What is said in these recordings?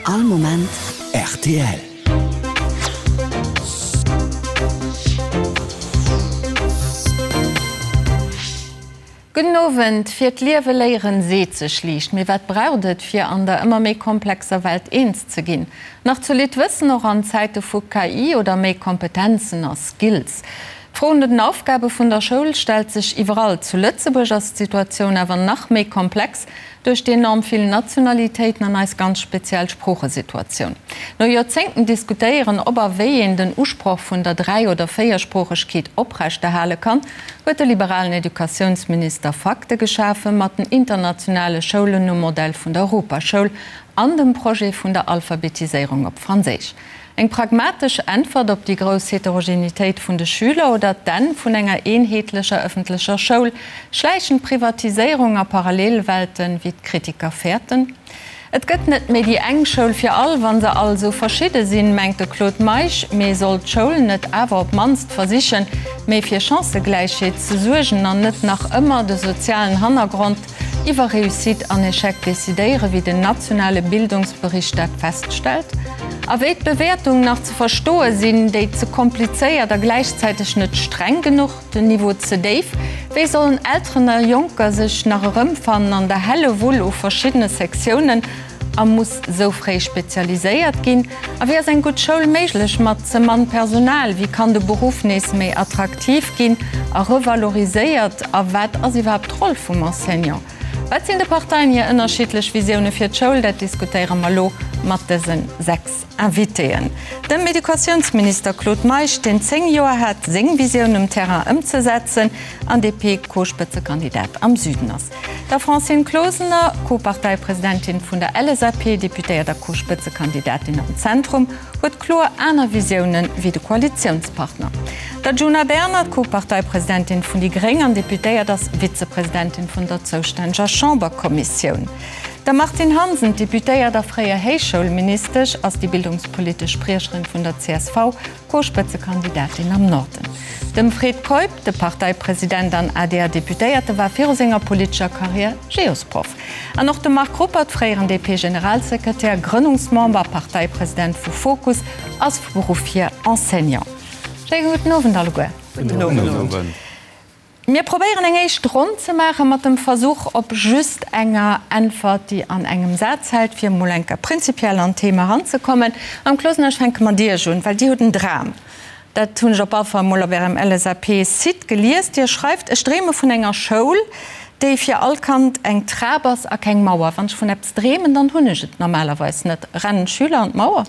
All Moment rtl. Gudden Owend. Fir d'Liewe léieren seet sech liicht, mee wat braucht et fir an der ëmmer méi komplexer Welt eens ze ginn? Nach zolidd Wëssen, och an Zäite vu KI oder méi Kompetenzen a Skills? D'Fro no den Aufgabe vun der Schoul stellt sech iwwerall. Zu Lëtzebuerg ass d'Situatioun awer nach méi komplex duerch déi enorm vill Nationalitéiten an eis ganz speziell Sproochesituatioun. No Joerzéngten diskutéieren, ob a wéi een den Usproch vun der Dräi oder Véiersproochegkeet oprechterhale kann, huet de liberalen Educatiounsminister Fakte geschafe mat den internationale Schoulen nom Modell vun der Europaschoul an dem Projet vun der Alphabetiséierung op Franséisch. Eng pragmatesch Äntwert op déi grouss Heterogenitéit vun de Schüler oder d'Enn vun enger eenheetlecher ëffentlecher Schoul, schläichend Privatiséierung a Parallelwelten, wéi d'Kritiker fäerten? Et gëtt net méi déi eng Schoul fir all, wa se all esou verschidde sinn, mengt de Claude Meisch. Mee soll d'Schoul net awer op d'mannst versichen, méi fir Chancëgläichheet ze suergen an net nach ëmmer de sozialen Hannergrond iwwer Réussite an Echec decidéieren, wéi den nationale Bildungsbericht dat feststellt? A wéi d'Bewäertung nach ze verstoe sinn, déi ze komplizéiert a gläichzäiteg net streng genuch? Den Niveau ze déif? Wéi sollen Elteren a Jonker sech nach erëmfannen an der Hellewull u verschiddene Sektiounen a muss sou fréi spezialiséiert ginn? A wéi ass eng gutt Schoul méiglech mat ze mann Personal? Wéi kann de Beruff nees méi attraktiv ginn a revaloriséiert? A wat ass iwwerhaapt d'Roll vum Enseignant? Wat sinn de Parteien hir ënnerschiddlech Visioune fir d'Schoul? Dat diskutéiere mer elo mat dëse 6 Invitéen. Dem Educatiounsminister Claude Meisch, deen 10 Joer hat, seng Visioun um Terrain ëmzesetzen an DP-Co-Spëtzekandidat am Süden ass. Der Francine Closener, Co-Parteipresidentin vun der LSAP, Deputéiert a Co-Spëtzekandidatin am Zentrum, huet kloer aner Visiounen wéi de Koalitiounspartner. Der Djuna Bernard, Co-Parteipresidentin vun déi gréng an Deputéiert, ass Vizepresidentin vun der zoustänneger Chamberkommissioun. Der Martine Hansen, Deputéiert a fréier Héichschoulministesch, ass déi bildungspolitesch Spriecherin vun der csv, Co-Spëtzekandidatin am Norden. Dem Fred Keup, de Parteipresident an ADR-Deputéierte, war viru senger politescher Karriär Geosproff. An och de Marc Ruppert, fréieren DP-Generalsekretär, Grënnungsmember a Parteipresident vu Fokus, ass vu Beruff hier Enseignant. Schéine gudden Owend alleguer. Gudden Owend. Mir probéieren eng éischt Ronn ze maache mat dem Versuch op just enger Äntwert, déi an engem Saz hält, fir emol eng Kéier prinzipiell an d'Thema eranzekommen. Madame Closener, ech fänke mat Iech un, well Dir hutt en Dram. Dat hunn ech op alle Fall emol op Ärem LSAP-Site gelies. Dir schreift, Ech dreeme vun enger Schoul, déi fir all Kand eng Trap ass a keng Mauer. Wann ech vun eppes dreemen, dann hunn ech et normalerweis net. Rennen d'Schüler an d'Mauer?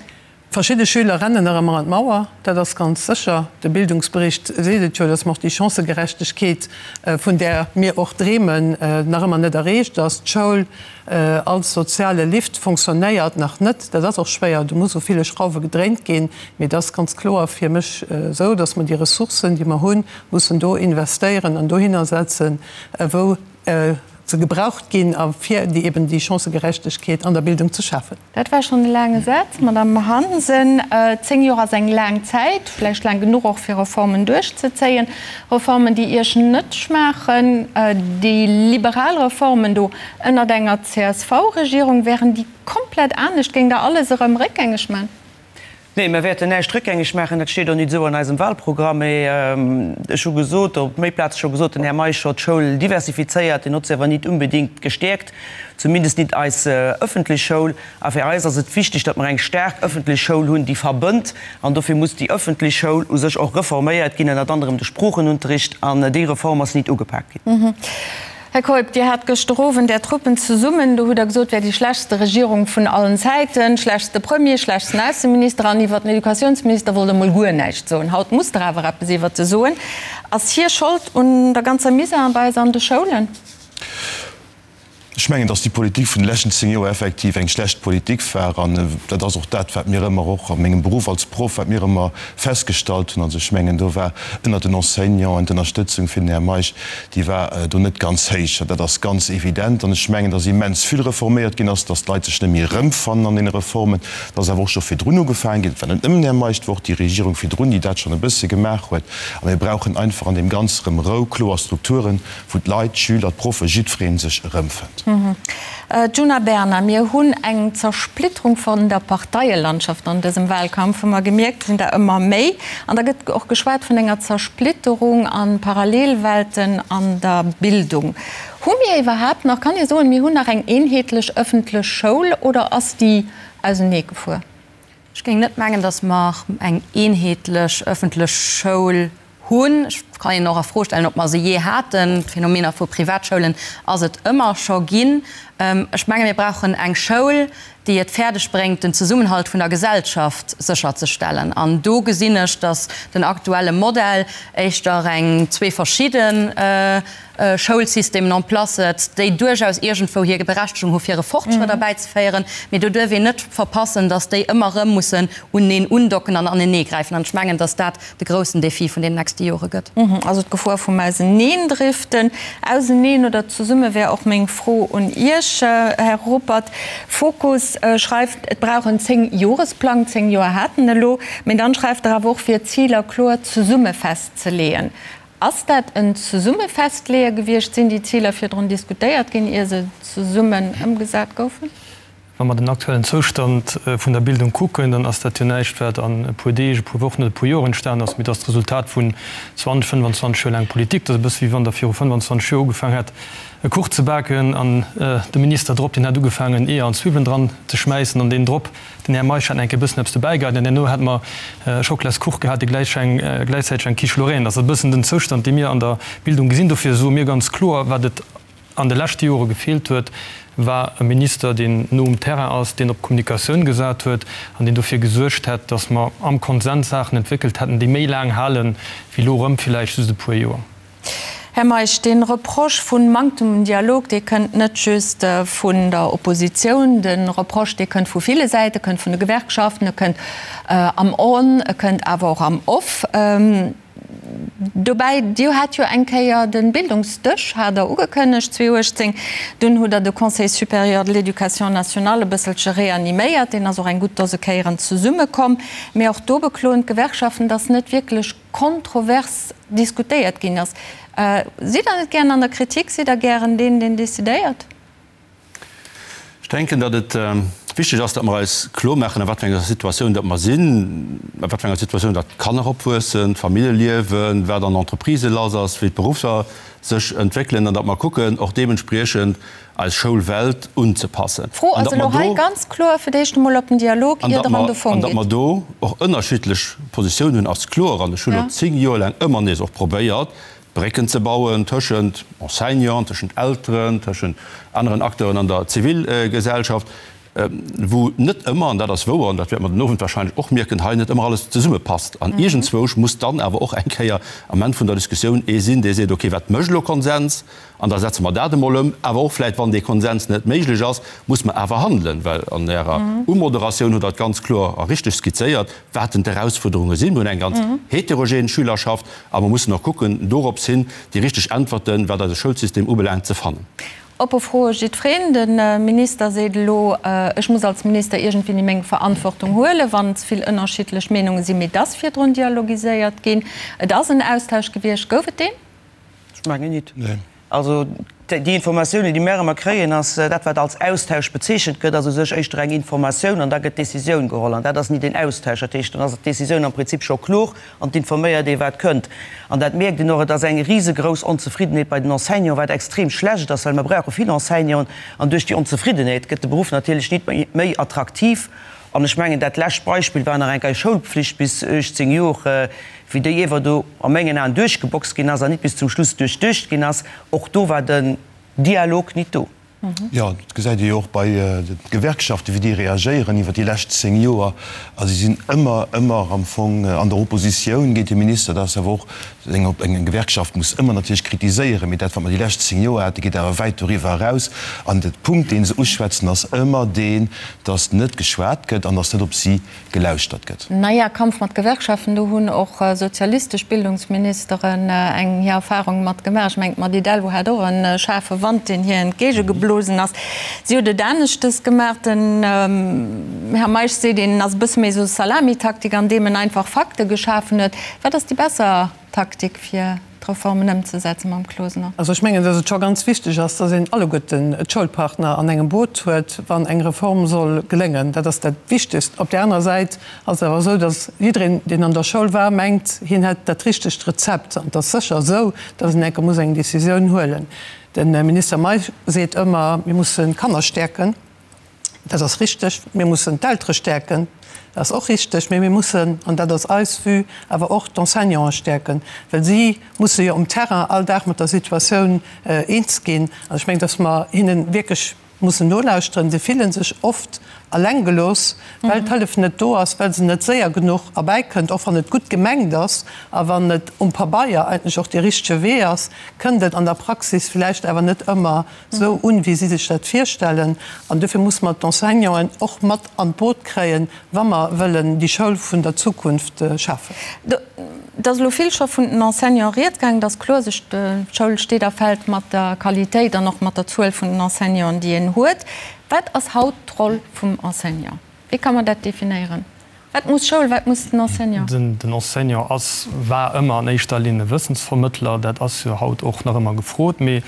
Verschidde Schüler rennen nach ëmmer an d'Mauer, dat ass ganz sécher. De Bildungsbericht seet et jo, dass mer och déi Chancëgerechtegkeet, vun där mir och dreemen, nach ëmmer net erreecht ass. D'Schoul als soziale Lift fonctionnéiert nach net. Dat ass och schwéier, do muss u ville Schrauwe gedréint ginn. Mee et ass ganz kloer fir mech esou, dass mer déi Ressourcen, déi mer hunn, mussen do investéieren an dohinner setzen, wou se gebraucht ginn a fir déi eben déi Chancëgerechtegkeet an der Bildung ze schafen. Dat war schonn e laange Saz, Madamm Hansen. 10 Joer ass eng laang Zäit, vläicht laang genuch och fir Reformen duerchzezéien. Reformen, déi Iech net schmaachen. Déi liberal Reformen do ënnert enger CSV-Regierung, wären déi komplett anescht? Géingt Der alles erëm réckgängeg man? Nee, mir wäerten näischt réckgängeg maachen. Dat steet och nit esou an eisem Wahlprogramm. Mee ech hu gesot, op méi Plaze scho gesot, den Här Meisch hott d'Schoul diversifizéiert, deen hott se awer nit unbedingt gestäerkt, zumindest nit eis ëffentlech Schoul. A fir eis ass et wichteg, datt mer eng staark ëffentlech Schoul hunn, déi verbënnt. An dofir muss déi ëffentlech Schoul u sech och reforméiert ginn, ënnert anerem de Sproochenunterricht. An déi Reform ass nit ugepak ginn. Här Keup, Dir hat gëschter Owend Är Truppen zesummen. Do hutt Der gesot, et wär déi schlechtste Regierung vun allen Zäiten, schlechtste Premier, schlechtsten Ausseminister an iwwert den Educatiounsminister wollt Der mol guer näischt soen. Haut musst Der awer eppes iwwert e soen. Ass hie Schold un der ganzer Misär bei eis an de Schoulen? Ech mengen, datt déi Politik vun de leschten 10 Joer effektiv eng schlecht Politik war. An dat ass och dat, wat mir ëmmer och a mengem Beruff als Proff, wat mir ëmmer festgestallt hunn. Also ech mengen, do war ënnert den Enseignanten d'Ënnerstëtzung fir den Här Meisch, déi war do net ganz héich. Dat ass ganz evident. An ech mengen, datt immens vill reforméiert ginn ass, datt d'Leit sech net méi erëmfannen an deene Reformen. Et ass awer och scho virdrun ugefaangen ginn, et war net nëmmen den Här Meisch, et war och déi Regierung virdrun, déi dat schonn e bësse gemaach huet. A mir brauchen einfach an deem Ganze rëm Rou, kloer Strukturen, wou d'Leit, d'Schüler, d'Proffe, jiddweree sech erëmfënnt. Djuna Bernard, Mir hunn eng Zersplitterung vun der Parteielandschaft an dësem Wahlkampf, hu mer gemierkt, et sinn der ëmmer méi. An da gëtt och geschwat vun enger Zersplitterung a Parallelwelten an der Bildung. Hu mir iwwerhaapt nach, kann ee soen, mir hunn nach eng eenheetlech ëffentlech Schoul oder ass déi auseneegefuer? Ech géing net mengen, datt mer eng eenheetlech ëffentlech Schoul hunn. Ech kann een och a Fro stellen, ob mer se jee haten. D'Phänomener vu Privatschoulen ass et ëmmer scho ginn. Ech menge mir brauchen eng Schoul, déi et fäerdeg bréngt, den Zesummenhalt vun der Gesellschaft sécherzestellen. An do gesinn ech, datt den aktuelle Modell éischter eng zwee verschidde Schoulsystemen en place setzt, déi duerchaus iergendwou hir Berechtegung hu fir e Fortschrëtt erbäizeféieren, mee do duerf een net verpassen, datt déi ëmmer erëm mussen uneneen undocken an aneneegräifen. An ech mengen, datt dat de groussen Défi vun deenen nächste Jore gëtt. Also d'Gefor vum Auseneendriften. Auseneen oder zesumme wär och meng Fro un Iech, Här Ruppert. Fokus schreift, et brauch en Zéngjoresplang, 10 Joer hat en elo, mee dann schreift Der awer och, fir Ziler kloer zesumme festzeleeën. Ass dat en Zesummefestleeë gewiescht? Sinn déi Ziler virdrun diskutéiert ginn, ier se zesummen ëmgesat goufen? Wa mer den aktuellen Zoustand vun der Bildung kucken, dann ass dat jo näischt, wat an e puer Deeg, e puer Wochen oder e puer Joer entstanen ass, mee et ass d'Resultat vun 20, 25 Joer laang Politik. Dat ass e bësse wéi wann Der viru 25 Joer ugefaang hätt, e Kuch ze baken an de Minister drop, deen hätt ugefaangen, Eeër an Zwiwwelen dran ze schmäissen an deen drop, den Här Meisch, hätt nach eng Kéier e bëssen eppes dobäigeheit an herno hätte mer e Schockelaskuch gehat, dee gläichzäiteg eng Quiche Lorraine ass. Dat ass e bëssen den Zoustand, dee mir an der Bildung gesinn. Dofir soe mir ganz kloer, wat et an de leschte Jore gefeelt huet, war e Minister, deen no um Terrain ass, deen op Kommunikatioun gesat huet an deen dofir gesuergt hätt, datt mer am Konsens Saachen entwéckelt hätten, déi méi laang halen, wéi elo erëm villäicht just e puer Joer. Här Meisch, dee Reproche vun Manktem un Dialog, dee kënnt net just vun der Oppositioun. De Reproche, dee kënnt vu ville Säiten, e kënnt vun de Gewerkschaften, e kënnt am On, e kënnt awer och am Off. Dobäi, Dir hat jo eng Kéier de Bildungsdësch, hat Der ugekënnegt 2018. Dunn hutt Der de Conseil supérieur de l'éducation nationale e bësselche reaniméiert. Deen ass och eng gutt Dose Kéieren zesummekomm. Mee och do bekloen d'Gewerkschaften, datt net wierklech kontrovers diskutéiert ginn ass. Sidd Der net gären an der Kritik? Sidd Der gären deen, deen decidéiert? Ech denken, datt et wichteg ass, datt mer eis klormaachen, a wat fir enger Situatioun datt mer sinn, a wat fir enger Situatioun datt d'Kanner opwuessen, d'Famillje liewen, wat an Entreprisë lass ass, wéi d'Beruffer sech entwéckelen, an datt mer kucken, och deementspriechend eis Schoulwelt unzepassen. D'Fro ass elo hei ganz kloer fir d'éischt emol op den Dialog, ier Der an de Fong gitt. An datt mer do och ënnerschiddlech Positiounen hunn, ass kloer. An ech hunn elo 10 Joer laang ëmmer nees och probéiert, Brécken ze bauen tëschent Enseignanten, tëschent Elteren, tëschent aneren Acteuren an der Zivilgesellschaft, wou net ëmmer, an dat ass wouer, an dat wäerte mer den Owend wahrscheinlech och mierken, hei net ëmmer alles zesummepasst. An iergendzwousch muss dann awer och eng Kéier am Enn vun der Diskussioun ee sinn, dee seet, okay, wat mécht elo Konsens? An da setze mer dat emol ëm. Awer och vläicht, wann dee Konsens net méiglech ass, muss mer awer handelen, well an Ärer Umoderatioun hutt Der et ganz kloer a richteg skizzéiert, wat denn d'Erausfuerderunge sinn. Mir hunn eng ganz heterogen Schülerschaft a mer mussen och kucken, dorops hin déi richteg Äntwerten, wat eise Schoulsystem ubelaangt, ze fannen. Oppe Froe jiddwereen. De Minister seet elo, Ech muss als Minister iergendwéini meng Verantwortung huelen, wann ze vill ënnerschiddlech Meenunge sinn. Mee et ass virdrun dialogiséiert ginn. Et ass en Austausch gewiescht. Gouf et deen? Ech mengen nit. Also déi Informatiounen, déi mär ëmmer kréien, ass dat, wat als Austausch bezeechent gëtt, ass u sech éischter eng Informatioun an da gëtt d'Décisioun geholl. An dat ass nit een Austausch. Dat heescht, dann ass d'Décisioun am Prinzip scho kloer an et informéiert ee wat kënnt. An dat mierkt een och, et ass eng risegrouss Onzefriddenheet bei den Enseignanten, wat extrem schlecht ass, well mer brauche vill Enseignanten. An duerch déi Onzefriddenheet gëtt de Beruff natierlech nit méi attraktiv. An ech mengen, dat lescht Beispill war nach eng Kéier Schoulpflicht bis 18 Jor, wéi déi iewer do a mengen Aen duerchgeboxt ginn ass an nit bis zum Schluss duerchduecht ginn ass. Och do war den Dialog nit do. Jo, dat gesäit ee jo och bei de Gewerkschaften, wéi déi reagéieren iwwer déi lescht 10 Joer. A si sinn ëmmer, ëmmer am Fong an der Oppositioun géint de Minister. Dat ass awer och eng, eng Gewerkschaft muss ëmmer natierlech kritiséieren, mee dat, wat mer déi lescht 10 Joer haten, geet awer wäit doriwwer eraus. An de Punkt, dee se uschwätzen, ass ëmmer deen, dass net geschwat gëtt an dass net op si gelauschtert gëtt. Naja, Kampf mat Gewerkschaften, do hunn och sozialistesch Bildungsministeren eng hir Erfahrung mat gemaach. Ech mengen, d'Mady Delvaux hat och e schaarfe Wand, deen hir entgéigegeblosen ass. Si huet et aneschtes gemaach. Den Här Meisch seet, een ass e bësse méi esou Salamitaktik, andeem en einfach Fakte geschafen huet. Wat ass déi besser Taktik fir? d'Reformen ëmzesetzen, Mme Closener? Also ech mengen, datt et scho ganz wichteg ass, datt een alleguerten d'Schoulpartner an engem Boot huet, wann eng Reform soll geléngen. Dat ass dat Wichtegst. Op där anerer Säit ass et awer esou, datt jiddereen, deen an der Schoul war, mengt, hien hätt dat richtegt Rezept. An et ass sécher esou, datt een enke muss eng Décisioun huelen. De Minister Meisch seet ëmmer, mir mussen d'Kanner stäerken. Dat ass richteg. Mir mussen d'Eltere stäerken. Dat ass och richteg. Mee mir mussen, an dat ass eis Vue, awer och d'Enseignanten stäerken, well si musse jo um Terrain all Dag mat der Situatioun eens ginn. An ech mengen, dass mer hinne wierklech mussen nolauschteren. Se fille sech oft eleng gelooss, well d'Hëllef net do ass, well se net séier genuch erbäikënnt. Och wann et gutt gemengt ass a wann et um Pabeier eigentlech och dee richtege Wee ass, kënnt et an der Praxis vläicht awer net ëmmer esou un, wéi si sech dat virstellen. An dofir musse mer d'Enseignanten och mat an d'Boot kréien, wa mer wëllen déi Schoul vun der Zukunft schafen. Et ass elo vill scho vun den Enseignanten rieds gaangen. Et ass kloer, sech d'Schoul steet a fält mat der Qualitéit an och mat der Zuel vun den Enseignanten, déi een huet. Wat ass haut d'Roll vum Enseignant? Wéi ka mer dat definéieren? Wat muss Schoul, wat muss den Enseignant? Den Enseignant ass, war ëmmer an éischter Linn e Wëssensvermëttler. Dat ass jo haut och nach ëmmer gefrot. Mee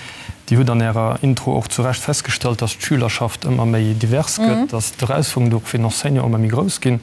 Dir hutt an Ärer Intro och zu Recht festgestallt, dass d'Schülerschaft ëmmer méi divers gëtt, dass d'Erausfuerderungen och fir den Enseignant ëmmer méi grouss ginn.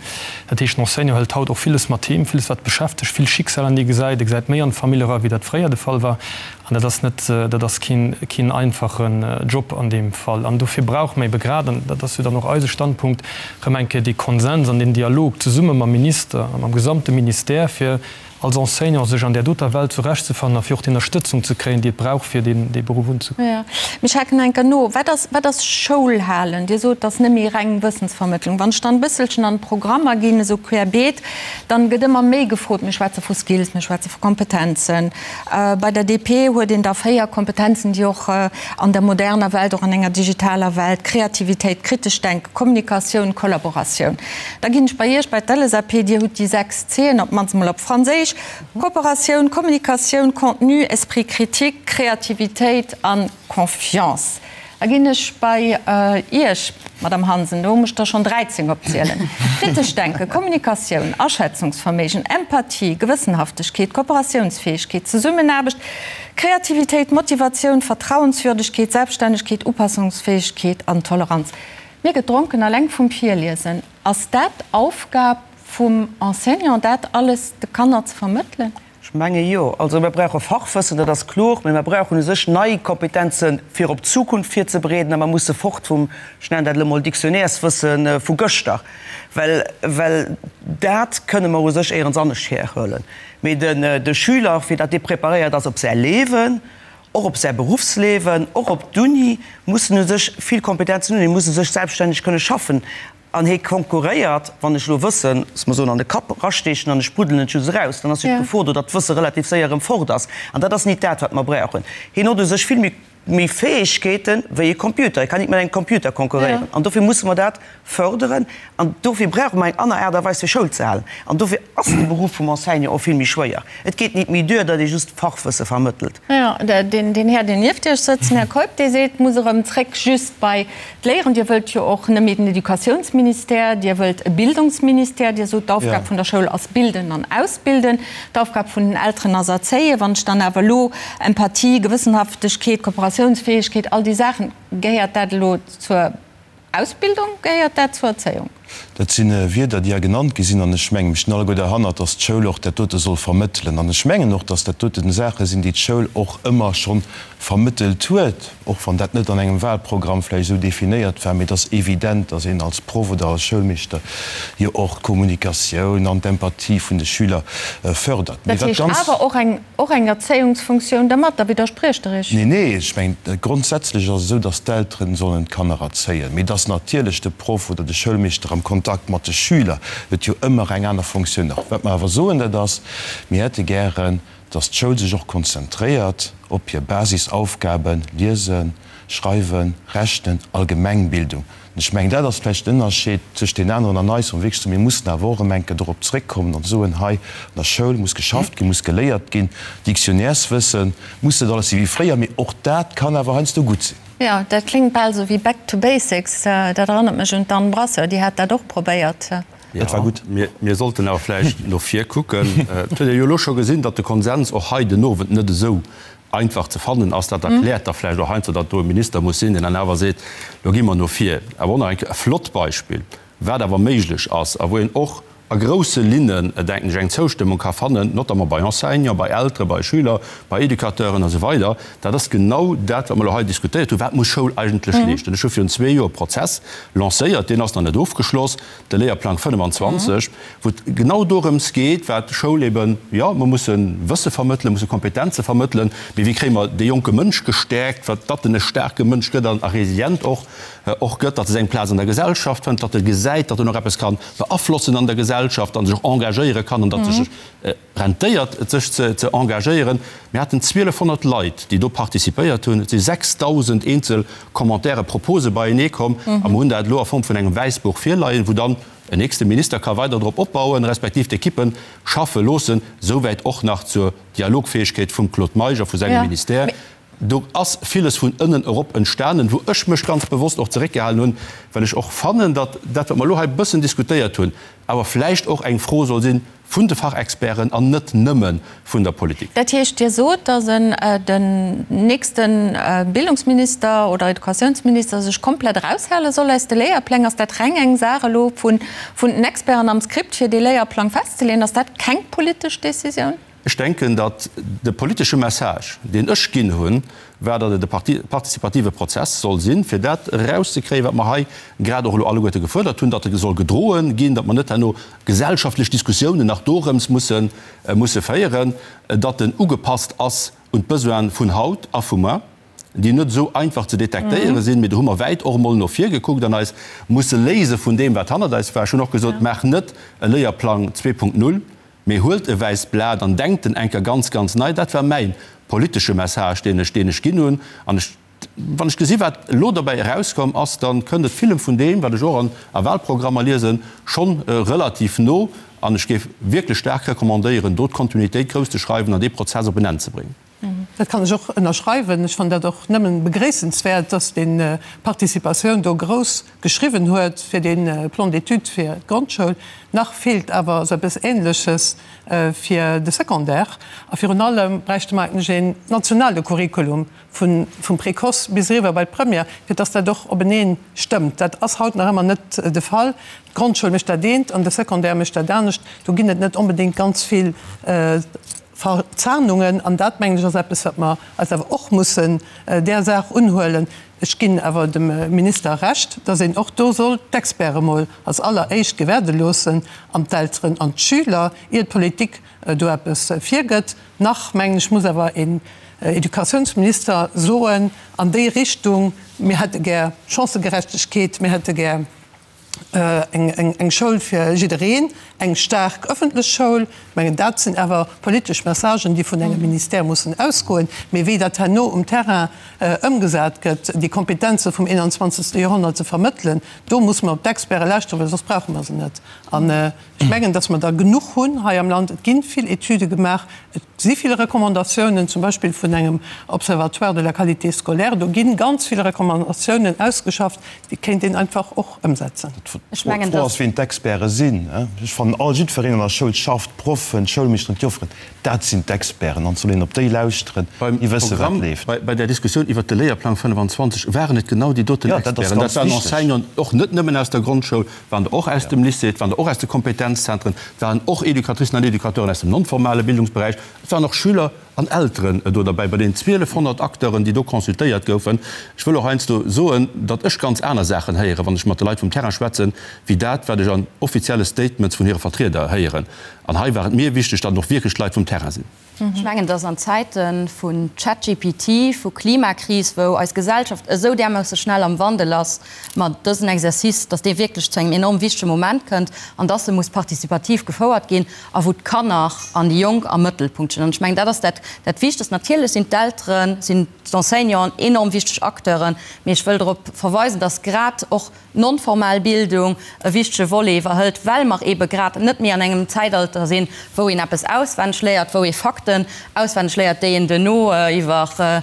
Dat heescht, den Enseignant hëlt haut och villes mat heem, villes wat beschäftegt, vill Schicksaler, déi e gesäit. E gesäit méi an d'Famill era wéi dat fréier de Fall war. An dat ass net, dat ass keen, keen einfachen Job an deem Fall. An dofir brauche mer ebe grad, an dat ass jo dann och eise Standpunkt, erëm eng Kéier dee Konsens an deen Dialog zesumme mam Minister a mam gesamte Ministère, fir als Enseignant sech an där doter Welt zurechtzefannen a fir och déi Ënnerstëtzung ze kréien, déi et brauch, fir deen, dee Beruff unzegoen. Jo, mee ech haken eng Kéier no. Wat ass, wat ass Schoul halen? Dir sot, et ass net méi reng Wëssensvermëttlung. Wann ech dann e bësselchen an d'Programmer ginn, esou querbeet, dann gëtt ëmmer méi gefrot, mir schwätze vu Skills, mir schwätze vu Kompetenzen, Bei der DP huet een da 4 Kompetenzen, déi och an der moderner Welt, och an enger digitaler Welt, Kreativitéit, kritescht Denken, Kommunikatioun, Kollaboratioun. Da ginn ech bei Iech, bei d'LSAP, Dir hutt déi 6 C'en, op d'mannst emol op Franséisch, Kooperatioun, Kommunikatioun, Contenu, Esprit critique, Kreativitéit a Confiance. Da ginn ech bei Iech, Madame Hansen, do muss ech der schonn 13 opzielen, Kritesch Denken, Kommunikatioun, Aschätzungsverméigen, Empathie, Gewëssenhaftegkeet, Kooperatiounsfäegkeet, Zesummenaarbecht, Kreativitéit, Motivatioun, Vertrauenswürdegkeet, Selbststännegkeet, Upassungsfäegkeet an Toleranz. Mir gëtt dronken alleng vum Virliesen. Ass dat d'Aufgab vum Enseignant, dat alles de Kanner ze vermëttelen? Ech menge jo. Also mir brauche Fachwëssen, dat ass kloer, mä mir brauchen u sech nei Kompetenze fir op d'Zukunft virzebereeden a mer musse fort vum, ech nennen dat elo mol Dictionnaireswësse vu gëschter, well, well dat kënne mer u sech éierens anescht herhuelen. Mee den, de Schüler, fir datt dee preparéiert ass op säi Liewen, och op säi Beruffsliewen, och op d'Uni, muss en u sech vill Kompetenzen hunn, e muss u sech selbststänneg kënne schaffen. An hie konkurréiert, wann ech elo Wëssen, loosse mer soen, an de Kapp erasteechen an ech spruddelen et just eraus, dann ass jo d'Gefor do, datt d'Wësse relativ séier erëm fort ass. An dat ass nit dat, wat mer brauchen. Hien huet u sech vill méi, méi Fäegkeete wéi e Computer. E kann nit mat engem Computer konkurréieren. An dofir musse mer dat fërderen. An dofir brauche mer eng aner Aart a Weis, fir Schoul ze halen. An dofir ass de Beruff vum Enseignant och vill méi schwéier. Et geet nit méi duer, datt ee just Fachwësse vermëttelt. Jo, deen Här, deen nieft Iech sëtzt, den Här Keup, dee seet, et muss erëm zréck just bei d'Léieren. Dir wëllt jo och net méi den Educatiounsministère, Dir wëllt e Bildungsministère. Dir sot, d'Aufgab vun der Schoul ass bilden an ausbilden, d'Aufgab vun den Elteren ass erzéien. Wann ech dann awer elo Empathie, Gewëssenhaftegkeet, Kooperatiounsfäegkeet, all déi Saachen, gehéiert dat elo zur Ausbildung, gehéiert dat zur Erzéiung? Dat si Wierder, déi hei genannt gi sinn, an ech mengen, mir stinn alleguer derhannert, dass d'Schoul och dat dote soll vermëttelen. An ech mengen och, dass dat doten Saache sinn, déi d'Schoul och ëmmer scho vermëttelt huet, och wann dat net an engem Wahlprogramm vläicht esou definéiert war. Mee et ass evident, dass een als Proff oder als Schoulmeeschter jo och d'Kommunikatioun an d'Empathie vun de Schüler fördert. Mee Dat wat heescht ganz. awer och eng Och eng Erzéiungsfunktioun dermat? Da widderspriecht Der Iech. Nee, nee, ech mengen, grondsätzlech ass et esou, datt d'Elteren sollen d'Kanner erzéien, mee datt natierlech de Proff oder de Schoulmeeschter am Kontakt mat de Schüler huet jo ëmmer eng aner Funktioun nach. Wat mer awer soen, dat ass, mir hätte gären, datt d'Schoul sech och konzentréiert op hir Basisaufgaben, Liesen, Schreiwen, Rechnen, Allgemengbildung. An ech mengen, dat ass vläicht den Ënnerscheed tëscht deenen aneren an eis, wou mer wierklech soen, mir mussen awer och erëm eng Kéier dorop zréckkommen an soen, hei an der Schoul muss geschafft ginn, muss geléiert ginn, Dictionnaireswësse muss net alles sinn wéi fréier, mee och dat kann awer heiansdo gutt sinn. Jo, dat kléngt bal esou wéi back to basics. Dat erënnert mech un d'Anne Brasseur, déi hat dat och probéiert. Dat war gutt. Mir sollten awer vläicht no vir kucken. Et huet ee jo elo scho gesinn, datt de Konsens och hei den Owend net esou einfach ze fannen ass. Dat erkläert da vläicht och heiansdo, datt do e Minister muss sinn, deen dann awer seet, Lo gi mer no vir. Awer och nach eng Kéier e flott Beispill, wat awer méiglech ass a wou een och a grousse Linnen, denken ech, eng Zoustëmmung ka fannen, notamment bei Enseignants, bei Elteren, bei Schüler, bei Educateuren a sou weider, dat ass genau dat, wat mer elo hei diskutéiert hunn, Wat muss Schoul eigentlech leeschten? Ech hu virun zwee Joer e Prozess lancéiert, deen ass nach net ofgeschloss, de Léierplang 25, wou et genau dorëms geet, wat d'Schoul eben, jo, mer musse Wësse vermëttelen, musse Kompetenze vermëttelen, mee wéi kréie mer dee jonke Mënsch gestäerkt, wat datt en e staarke Mënsch gëtt an a resilient och och gëtt, datt e seng Plaz an der Gesellschaft fënnt, datt e gesäit, datt en och eppes ka beaflossen an der Gesellschaft an sech och engagéiere kann an datt sech rentéiert, et sech ze engagéieren. Mir haten 1.200 Leit, déi do participéiert hunn. Et si 6.000 eenzel Commentaire, Propose beienee komm a mer hunn dat elo a Form vun engem Wäissbuch virleien, wou dann en nächste Minister ka weider drop opbauen, respektiv d'Ekippe schaffe loossen. Souwäit och nach zur Dialogfäegkeet vum Claude Meisch a vu sengem Ministère. Do ass villes vun ënnen erop entstanen, wou ech mech ganz bewosst och zeréckgehalen hunn, well ech och fannen, datt dat, wat mer elo hei e bëssen diskutéiert hunn, awer vläicht och eng Fro soll si vun de Fachexperten an net nëmme vun der Politik. Dat heescht, Dir sot, datt en den nächste Bildungsminister oder Educatiounsminister sech komplett eraushale soll aus de Léierpläng? Ass dat reng eng Saach elo vun den Experten am Script, fir dee Léierplang festzeleeën? Ass dat keng politesch Décisioun? Ech denken, datt de politesche Message, deen ech ginn hunn, war, datt et e partizipative Prozess soll sinn, fir dat erauszekréien, wat mer hei grad och elo alleguerte gefuerdert hunn, datt e soll gedroe ginn, datt mer net herno gesellschaftlech Diskussiounen nach dorëms musse musse féieren, datt en ugepasst ass un d'Besoine vun haut a vu muer, déi net esou einfach ze detektéiere sinn. Mee do hu mer wäit och emol no vir gekuckt an eis musse léise vun deem, wat hannert eis war. Ech hunn och gesot, Maach net e Léierplang 2.0, Mee huelt e wäisst Blat an denkt en enker ganz, ganz nei. Dat war mäi politesche Message, deen ech, deen ech ginn hunn. An ech, wann ech gesi wat elo dobäi erauskomm ass, da kënnt et villem vun deem, wat ech och an a Wahlprogrammer liesen, schonn relativ no. An ech géif wierklech staark recommandéieren, do d'Kontinuitéit grouss ze schreiwen an dee Prozess op en Enn ze bréngen. Dat kann ech och ënnerschreiwen. Ech fannen dat och nëmmen begréissenswäert, dass deen Participatioun do grouss geschriwwen huet fir dee Plan d'études fir d'Grondschoul. Nach feelt awer esou eppes Ähnleches fir de Secondaire. A virun allem bräichte mer eigentlech een nationale Curriculum vun vum Précoce bis eriwwer bei d'Première, fir dass dat och openeen stëmmt. Dat ass haut nach ëmmer net de Fall. D'Grondschoul mécht dat eent an de Secondaire mécht dat anescht. Do ginn et net onbedéngt ganz vill Verzahnungen, an dat, mengen ech, ass eppes, wat mer eis awer och mussen där Saach unhuelen. Ech ginn awer dem Minister Recht, dass een och do soll d'Experte mol als alleréischt gewäerde loossen an d'Elteren an d'Schüler, ier d'Politik do eppes virgëtt. Nach, mengen ech, muss awer een Educatiounsminister soen an déi Richtung, Mir hätte gär Chancëgerechtegkeet, mir hätte gär eng Schoul fir jiddereen, eng staark ëffentlech Schoul. Ech mengen, dat sinn awer politesch Messagen, déi vun engem Ministère mussen ausgoen. Mee wéi dat herno um Terrain ëmgesat gëtt, déi Kompetenze vum 21. Joerhonnert ze vermëttelen, do musse mer op d'Experte lauschteren, well soss brauche mer se net. An ech mengen, datt mer der genuch hunn hei am Land. Et gi vill Etüde gemaach, et si vill Recommandatiounen, zum Beispill vun engem Observatoire de la qualité scolaire. Do gi ganz vill Recommandatiounen ausgeschafft, Déi kéint een einfach och ëmsetzen. D'Fro ass, wien d'Experte sinn. Ech fannen, all jiddwereen an der Schoul schafft, d'Proffen, d'Schoulmeeschteren, d'Jofferen, dat sinn d'Experten an et soll een op déi lauschteren, déi wëssen, wat leeft. Bei der Diskussioun iwwert de Léierplang 25 waren et genau déi doten Experten. Dat waren Enseignanten, och net nëmmen aus der Grondschoul, waren der och aus dem Lycée, et waren der och aus de Kompetenzzentren, et waren och Educatricen an Educateuren aus dem non-formale Bildungsberäich, et waren och Schüler An Elteren do derbäi, bei den 1.200 Acteuren, déi do consultéiert goufen. Ech wëll och heiansdo soen, datt ech ganz aner Saachen héieren, wann ech mat de Leit vum Terrain schwätzen, wéi dat, wat ech an offizielle Statements vun hire Vertrieder héieren. An hei war et mir wichteg, datt et och wierklech d'Leit vum Terrain sinn. Ech mengen, datt an Zäite vun ChatGPT, vu Klimakris, wou eis Gesellschaft esou därmoosse schnell am Wandel ass, mer dësen Exercice, datt dee wierklech zu engem enorm wichtege Moment kënnt an datt e muss participativ gefouert ginn. a wou d'Kanner an déi Jonk am Mëttelpunkt stinn. An ech mengen, dat ass dat. Dat Wichtegst. Natierlech sinn d'Elteren, sinn d'Enseignanten enorm wichteg Acteuren, mee ech wëll drop verweisen, dass grad och d'nonformal Bildung e wichtege Volet iwwerhëlt, well mer eebe grad net méi an engem Zäitalter sinn, wou een eppes auswenneg léiert, wou ee Fakten auswenneg léiert, déi een duerno iwwer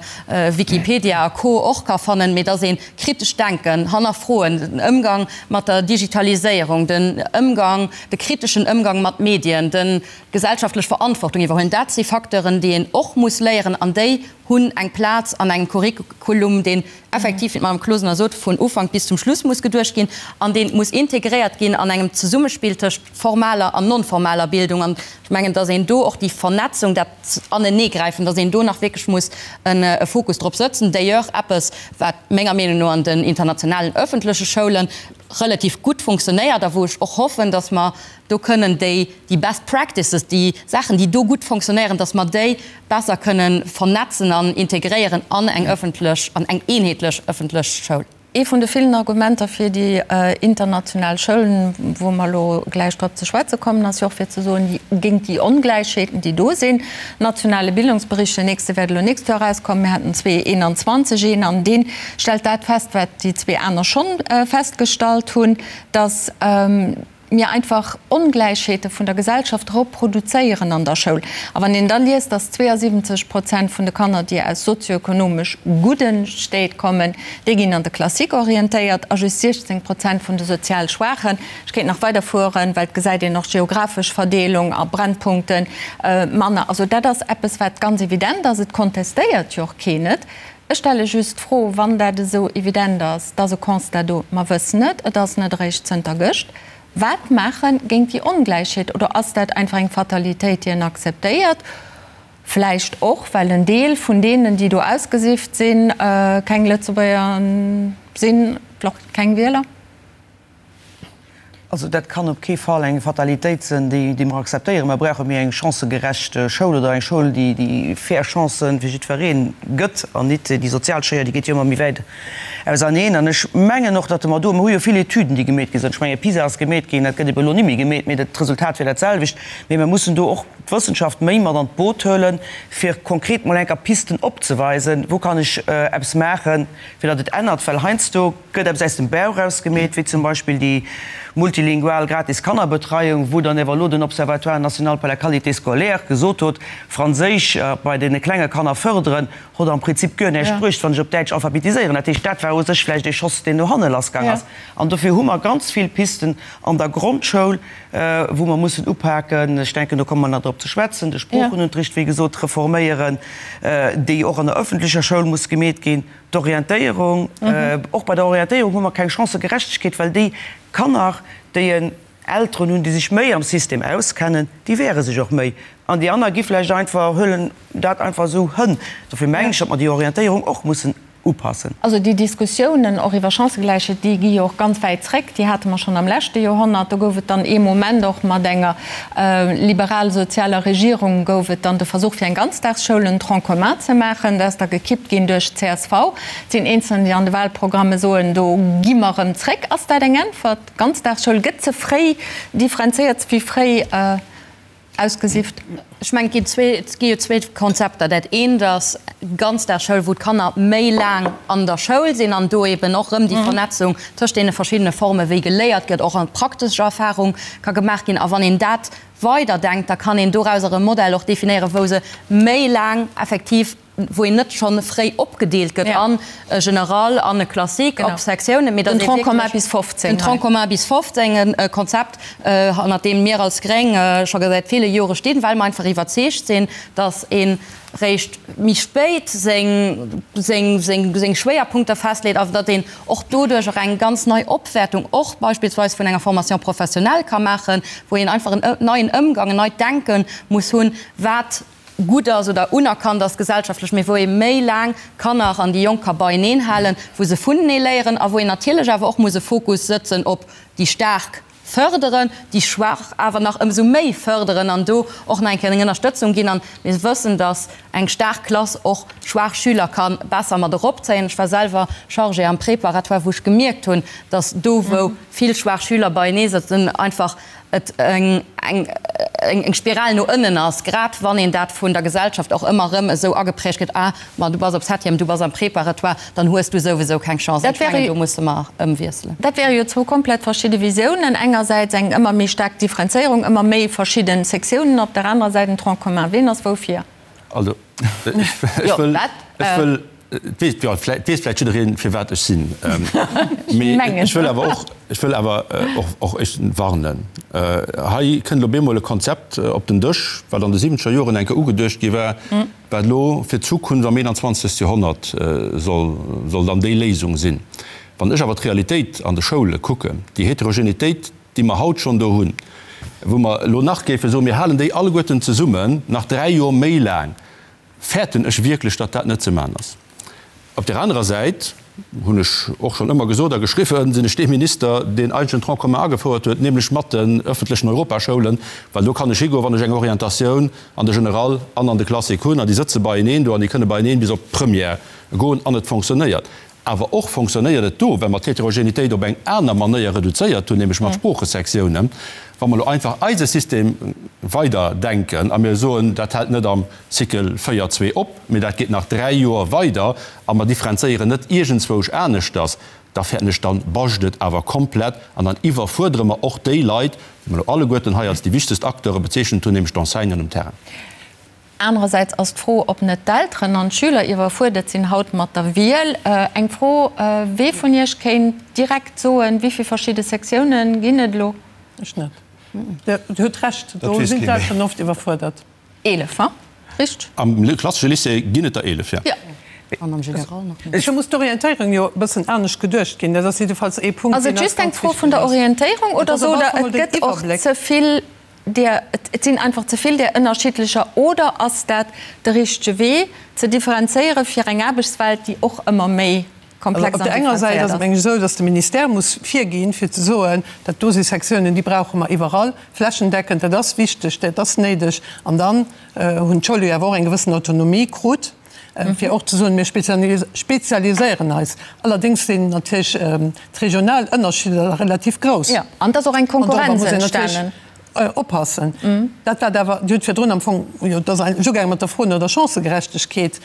Wikipedia a Co. Och ka fannen, mee dass ee kritescht Denken, Hannerfroen, den Ëmgang mat der Digitaliséierung, den Ëmgang, de kriteschen Ëmgang mat Medien, de gesellschaftlech Verantwortung iwwerhuelen, dat si Facteuren, déi een och muss léieren an déi hunn eng Plaz an engem Curriculum, deen effektiv, wéi d'Madame Closener sot, vun Ufank bis zum Schluss muss geduecht ginn an dee muss integréiert ginn an engem Zesummespill tëscht formaler an non-formaler Bildung. An ech mengen, dass een do och déi Vernetzung, dat Aneneegräifen, dass een do nach wierklech muss e Fokus drop sëtzen. D'ailleurs eppes, wat menger Meenung no an den internationalen öffentleche Schoule relativ gutt funktionéiert a wou ech och hoffen, dass mer do kënnen déi, déi best practices, déi Saachen, déi do gutt fonctionnéieren, dass mer déi besser kënnen vernetzen an integréieren an eng öffentlech, an eng eenheetlech öffentlech Schoul. Ee vun de villen Argumenter fir déi international Schoulen, wou mer elo gläich drop ze schwätze kommen, ass jo och fir ze soen, déi géint déi Ongläichheeten, déi do sinn. Nationale Bildungsbericht, den nächste wäert elo nächst Joer erauskommen, mir haten 2021 een, an dee stellt dat fest, wat déi zwee aner schonn festgestallt hunn, dass, mir einfach Ongläichheete vun der Gesellschaft reproduzéieren an der Schoul. A wann een da liest, dass 72 Prozent vun de Kanner, déi aus sozioekonomesch gudde Stéit kommen, déi ginn an de Classique orientéiert a just 16 Prozent vun de sozial Schwaachen, ech kéint nach weiderfueren, well et gesäit een och geographesch Verdeelung a Brennpunkten, manner. Also dat ass eppes, wat ganz evident ass. Et kontestéiert jo och keen et. Ech stelle just d'Fro, wann dat esou evident ass, et ass e Constat do, mer wëssen et, et ass net eréischt zënter gëscht, wat maache géint déi Ongläichheet? Oder ass dat einfach eng Fatalitéit, déi een akzeptéiert, vläicht och well en Deel vun deenen, déi do ausgesift sinn, keng Lëtzebuerger sinn, vläicht keng Wieler? Also dat kann op kee Fall eng Fatalitéit sinn, déi mer akzeptéieren. Mer brauche méi eng chancëgerecht Schoul oder eng Schoul, déi fair Chancë fir jiddweree gëtt an nit déi sozial Schéier, déi geet jo ëmmer méi wäit auserneen. An ech mengen och, datt mer do, mer hu jo vill Etüden, déi gemeet gi sinn, ech menge PISA ass gemeet ginn, dat gëtt ebe elo ni méi gemeet, mee d'Resultat wier dat selwecht. Mee mer mussen do och d'Wëssenschaft méi mat an d'Boot huelen, fir konkret mol enker Pisten opzeweisen, wou kann ech eppes maachen, fir datt et ännert, well heiansdo gëtt eppes aus dem Bauch raus gemeet, wéi zum Beispill déi multilingual gratis Kannerbetreiung, wou dann ewer elo den Observatoire national pour la qualité scolaire gesot hot, Franséisch bei deene klenge Kanner fërderen, hot am Prinzip guer näischt bruecht, wann ech op Däitsch alphabetiséieren. Dat heescht, dat war u sech vläicht ee Schoss, deen no hanne lassgaang ass. An dofir hu mer ganz vill Pisten an der Grondschoul, wou mer mussen upaken. Ech denken, do komme mer nach drop ze schwätzen, de Sproochenunterricht, wéi gesot, reforméieren, déi och an der öffentlecher Schoul muss gemeet ginn. D'Orientéierung, och bei der Orientéierung hu mer keng Chancëgerechtegkeet, well déi Kanner, déi en Elteren hunn, déi sech méi am System auskennen, déi wehre sech och méi an déi aner gi vläicht einfach, huelen dat einfach esou hënn. Dofir mengen ech, datt mer déi Orientéierung och mussen upassen. Also déi Diskussiounen och iwwer Chancëgläichheet, déi gi jo och ganz wäit zréck. Déi hate mer schonn am leschte Joerhonnert. Do gouf et dann ee Moment och mat enger liberal-sozialer Regierung gouf et dann de Versuch fir eng Ganzdagsschoul, en Tronc commun ze maachen. Dat ass da gekippt ginn duerch d'CSV. Et sinn Eenzelner, déi an de Wahlprogramme soen, do gi mer erëm zréck. Ass dat eng Äntwert? D'Ganzdagsschoul gëtt ze fréi differenzéiert, ze vill fréi Ausgesift. Ech mengen, et ginn zwee, et gi jo zwee Konzepter. Dat eent ass Ganzdagsschoul, wou d'Kanner méi laang an der Schoul sinn an do eben och erëm déi Vernetzung tëscht deene verschiddene Forme wéi geléiert gëtt, och an praktesch Erfahrung ka gemaach ginn. A wann een dat weiderdenkt, da kann een dorauser e Modell och definéieren, wou se méi laang effektiv wou een net schonn fréi opgedeelt gëtt an e General an e Classique op Sektiounen, mee datt ee wierklech den Tronc commun bis 15, e Konzept, hannert deem mir als Gréng scho säit ville Jore stinn, well mer einfach iwwerzeegt sinn, datt ee réischt méi spéit seng, seng, seng, seng Schwéierpunkter festleet a datt een och doduerch och eng ganz nei Opwäertung och beispillsweis vun enger Formation professionnelle ka maachen, wou een einfach en neien Ëmgang, en neit Denke muss hunn, wat gutt ass oder unerkannt ass gesellschaftlech, mee wou ee méi laang d'Kanner an déi Jonk ka beieneen halen, wou se vunenee léieren a wou een natierlech awer och muss e Fokus sëtzen op déi Staark fërderen, déi Schwaach awer nach ëmsou méi fërderen an do och nach eng Kéier eng Ënnerstëtzung ginn. An mir wëssen, dass eng staark Klass och schwaach Schüler ka besser mat eropzéien. Ech war selwer Chargée am Préparatoire, wou ech gemierkt hunn, dass do, wou vill schwaach Schüler beienee sëtzen, einfach et eng. eng Spiral no ënnen ass, grad wann een dat vun der Gesellschaft och ëmmer erëm esou ageprägt kritt, ah, ma du bass op Septième, du bass am Préparatoire, dann hues du souwisou keng Chance. Ech mengen, do musse mer ëmwiesselen. Dat wäre jo zwou komplett verschidde Visiounen, engersäits eng ëmmer méi staark Differenzéierung, ëmmer méi verschidde Sektiounen, op der anerer Säit en Tronc commun. Ween ass woufir? Also, ech wëll, ech wëll, et weess, jo, et weess vläicht jiddereen, firwat ech sinn. Mee ech wëll awer och, ech wëll awer och, och ech warnen. Hei kënnt elo bemol e Konzept op den Dësch, wat an de siwwenzeger Joren eng Kéier ugeduecht gi war, wat elo fir d'Zukunft am 21. Joerhonnert soll, soll dann déi Léisung sinn. Wann ech awer d'Realitéit an de Schoule kucken, déi Heterogenitéit, déi mer haut schonn do hunn, wou mer elo nach géife soen, mir halen déi alleguerten zesummen nach dräi Joer méi laang, fäerten ech wierklech, datt dat net ze maachen ass. Op där anerer Säit hunn ech och schonn ëmmer gesot a geschriwwen, sinn ech dee Minister, deen eigentlech den Tronc commun agefouert huet, nämlech mat den öffentlechen Europaschoulen, well do kann ech higoen, wann ech eng Orientatioun an de General an an de Classique hunn, an déi sëtze beieneen do an déi kënne beieneen bis op d'Première goen an et fonctionnéiert. Awer och fonctionnéiert et do, well mer d'Heterogenitéit op eng aner Manéier reduzéiert hunn, nämlech mat Sproochesektiounen. Wa mer elo einfach eise System weiderdenken a mir soen, dat hält net am Cycle 4, 2 op, mee dat geet nach dräi Joer weider a mer differenzéieren net iergendzwousch aneschters, da fäerten ech, dann bascht et awer komplett an dann iwwerfuerdere mer och déi Leit, déi mer elo alleguerten hei als déi wichtegst Acteure bezeechent hunn, nämlech d'Enseignanten um Terrain. Anerersäits ass d'Fro, ob net d'Elteren an d'Schüler iwwerfuerdert sinn haut mat der Wiel. Eng Fro, Wee vun Iech kéint direkt soen, wéi vill verschidde Sektiounen ginn et elo? Ech net. Dir hutt Recht, do sinn d'Elteren oft iwwerfuerdert. 11, ha? Richteg? Am klassesche Lycée ginn et der 11, jo. Jo. An am General nach méi. Do muss d'Orientéierung jo e bëssen anescht geduecht ginn. Dat ass jiddefalls ee Punkt, deen eis ganz wichteg ass. Ass et just eng Fro vun der Orientéierung oder sot Der, et gëtt och ze vill där, et sinn einfach ze vill där ënnerschiddlecher, oder ass dat de richtege Wee, ze differenzéiere fir eng Aarbechtswelt, déi och ëmmer méi komplex an differenzéiert ass? Op der enger Säit ass et, meng ech, esou, datt de Ministère muss virginn, fir ze soen, dat do si Sektiounen, déi brauche mer iwwerall, flächendeckend, dat ass wichteg, dat ass néideg. An dann hunn d'Schoule jo awer och eng gewëssen Autonomie krut, fir och ze soen, mir spezialiséieren eis. Allerdéngs sinn natierlech d'regional Ënnerschidder relativ grouss. Jo, an et ass och eng Konkurrenz entstanen. Oppassen. Dat wat awer, Dir hutt virdrun am Fong, jo, et ass eigentlech ugaange mat der Fro no der Chancëgerechtegkeet,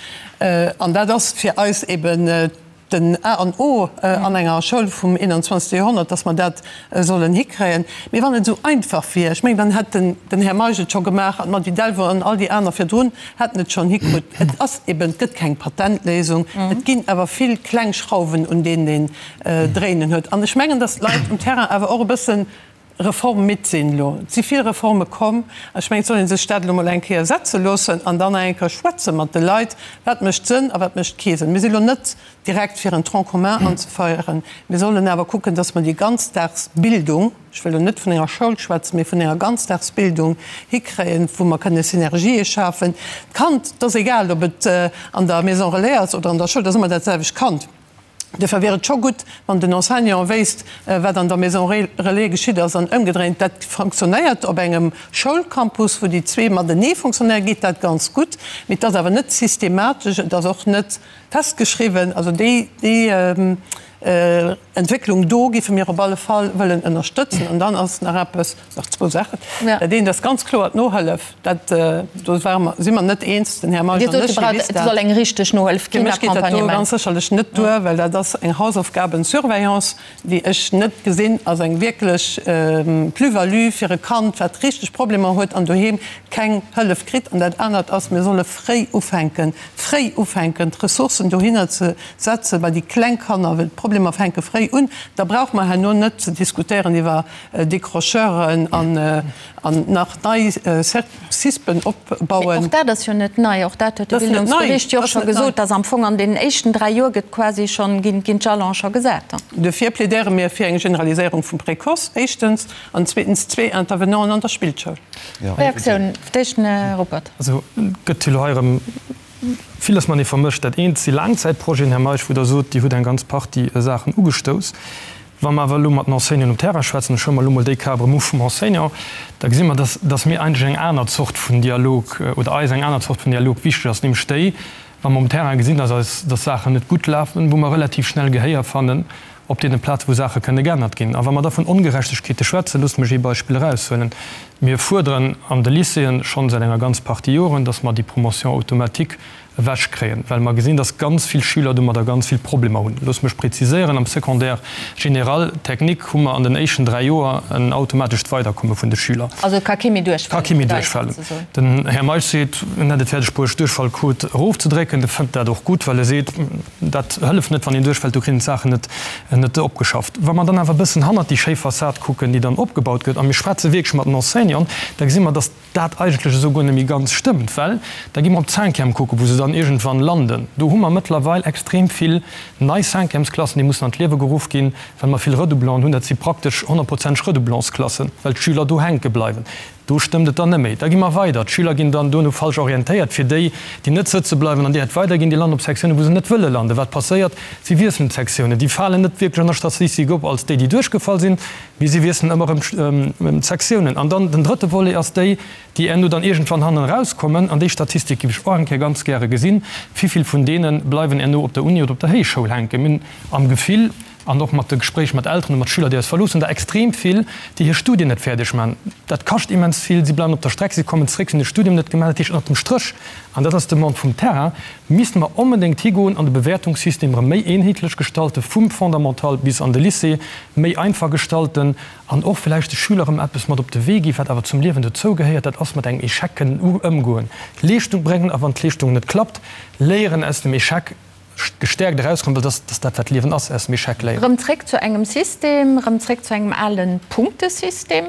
an dat ass fir eis eben den A an O an enger Schoul vum 21. Joerhonnert, dass mer dat sollen hikréien. Mee wann et esou einfach wier, ech mengen, dann hätt den Här Meisch et scho gemaach an d'Mady Delvaux an all déi aner virdrun hätten et schonn hikrutt. Et ass eben, et gëtt keng Patentléisung, et ginn awer vill kleng Schrauwen, un deenen een dréinen huet. An ech mengen, dass d'Leit um Terrain awer och e bëssen Reform-midd sinn elo. Et si vill Reforme komm. Ech mengen, et soll ee sech dat elo mol eng Kéier setze loossen an dann nach eng Kéier schwätze mat de Leit, wat mécht Sënn a wat mécht kee Sënn. Mir si elo net direkt fir en Tronc commun anzefeieren. Mir sollen awer kucken, dass mer déi Ganzdagsbildung, ech wëll elo net vun enger Schoul schwätzen, mee vun enger Ganzdagsbildung hikréien, wou mer kënne Synergië schafen. D'Kand, et ass egal, ob et an der Maison relais ass oder an der Schoul, et ass ëmmer dat selwecht Kand. Duerfir wier et scho gutt, wann den Enseignant wéisst, wat an der Maison relais geschitt ass an ëmgedréint. Dat fonctionnéiert op engem Schoulcampus, wou déi zwee matenee fonctionnéieren, geet dat ganz gutt. Mee et ass awer net systematesch, et ass och net festgeschriwwen. Also déi Entwécklung do géife mir op alle Fall wëllen ënnerstëtzen. An dann ass nach eppes, nach zwou Saachen. Dat eent ass ganz kloer d'Nohëllef. Dat, do ware mer, si mer net eens, den Här Meisch an ech, Dir wisst dat. Et soll eng richteg Nohëllef ginn, Fir mech geet dat do ganz sécherlech net duer, well dat ass eng Hausaufgabensurveillance, déi ech net gesinn als eng wierklech Plus-value fir e Kand, wat richteg Problemer huet an doheem keng Hëllef kritt. An dat anert ass, mir solle fréi ufänken, fréi ufänken, d'Ressourcen dohinner ze setzen, bei déi kleng Kanner, well d'Problemer fänke fréi un. Da brauche mer herno net ze diskutéieren iwwer Décrocheuren an An nach nei Cispen opbauen. Mee och dat ass jo net nei. Och dat huet de Bildungsbericht jo och scho gesot, dass am Fong an deenen éischten 3 Joer gëtt quasi schonn, ginn d'Jalone scho gesat. Duerfir plädéiere mir fir eng Generaliséierung vum Précoce, éischtens, an zweetens zwee Intervenanten an der Spillschoul. Reaktioun, fir d'éischt den Här Ruppert. Also et gëtt jo elo hei erëm villes matenee vermëscht. Dat eent si Laangzäitprojeten, Här Meisch, wou Der sot, Dir hutt eng ganz Partie Saachen ugestouss. Wa mer awer elo mat den Enseignanten um Terrain schwätzen, ech huele mer elo mol déi Kap erëm u vum Enseignant, da gesi mer, dass, dass mir eigentlech eng aner Zort vun Dialog oder eis eng aner Zort vun Dialog wichteg ass, nämlech déi, wa mer um Terrain gesinn, dass eis, dass Saachen net gutt lafen, wou mer relativ schnell Gehéier fannen. op deene Plaze wou Saache kënne geännert ginn. A wa mer da vun Ongerechtegkeete schwätzen, loosst mech ee Beispill eraushuelen, Mir fuerderen an de Lycéeën schonn säit enger ganz Partie Joren, dass mer déi Promotion automatique ewechkréien, well mer gesinn, dass ganz vill Schüler domadder ganz vill Problemer hunn. Loosst mech preziséieren, Am Secondaire général technique hu mer an den éischten 3 Joer en automatescht Weiderkomme vun de Schüler. Also et ka kee méi duerchfalen, Ka kee méi duerchfalen. Den Här Meisch seet, en hätt et fäerdeg bruecht, d'Duerchfallquot erofzedrécken. E fënnt dat och gutt, well e seet, dat hëlleft net, wann een duerchfält, do kritt een d'Saachen net, net opgeschafft. Wa mer dann awer e bëssen hannert déi schéi Fassad kucken, déi dann opgebaut gëtt, a mir schwätze wierklech mat den Enseignanten, da gesi mer, dass dat eigentlech esou guer net méi ganz stëmmt, well da gi mer op d'Cinquième kucken, wou se dann iergendwann landen. Do hu mer mëttlerweil extrem vill nei Cinquièmesklassen, déi mussen an d'Liewe geruff ginn, well mer vill Redoublanten hunn. Dat si praktesch honnertprozenteg Redoublantsklassen, well d'Schüler do hänke bleiwen. Do stëmmt et dann net méi. Da gi mer weider. D'Schüler ginn dann duerno falsch orientéiert. Fir déi, déi net sëtze bleiwen an direkt weiderginn, déi landen op Sektiounen, wou se net wëlle landen. Wat passéiert? Si wiesselen d'Sektiounen. Déi falen net wierklech an der Statistik op als déi, déi duerchgefall sinn, mee si wiesselen ëmmer erëm d'Sektiounen. An dann den drëtte Volet ass déi, déi herno dann iergendwann hannen erauskommen. An déi Statistik géif ech och eng Kéier ganz gäre gesinn. Wivill vun deene bleiwen herno op der Uni oder op der Héichschoul hänken? Mir hunn am Gefill, An och mat de Gespréich mat Elteren a mat Schüler, déi eis verloossen, der extrem vill, déi hir Studien net fäerdeg maachen. Dat kascht immens vill. Si bleiwen op der Streck, si kommen zréck, si hunn de Studium net gemaach. Dat heescht, ënnert dem Stréch, an dat ass d'Demande vum Terrain, misste mer onbedéngt higoen an de Bewäertungssystem erëm méi eenheetlech gestalten, vum Fondamental bis an de Lycée, méi einfach gestalten an och vläicht de Schüler erëm eppes mat op de Wee ginn, wat awer zum Liewen dozou gehéiert, dat ass mat engem Echec kënnen ëmgoen, Leeschtung bréngen a wann d'Leeschtung net klappt, léieren aus dem Echec. Gestäerkt erauskommen, well dass dat wat d'Liewen ass, aus dem Echec léieren. Rëm zréck zu engem System, rëm zréck zu engem ale Punktesystem?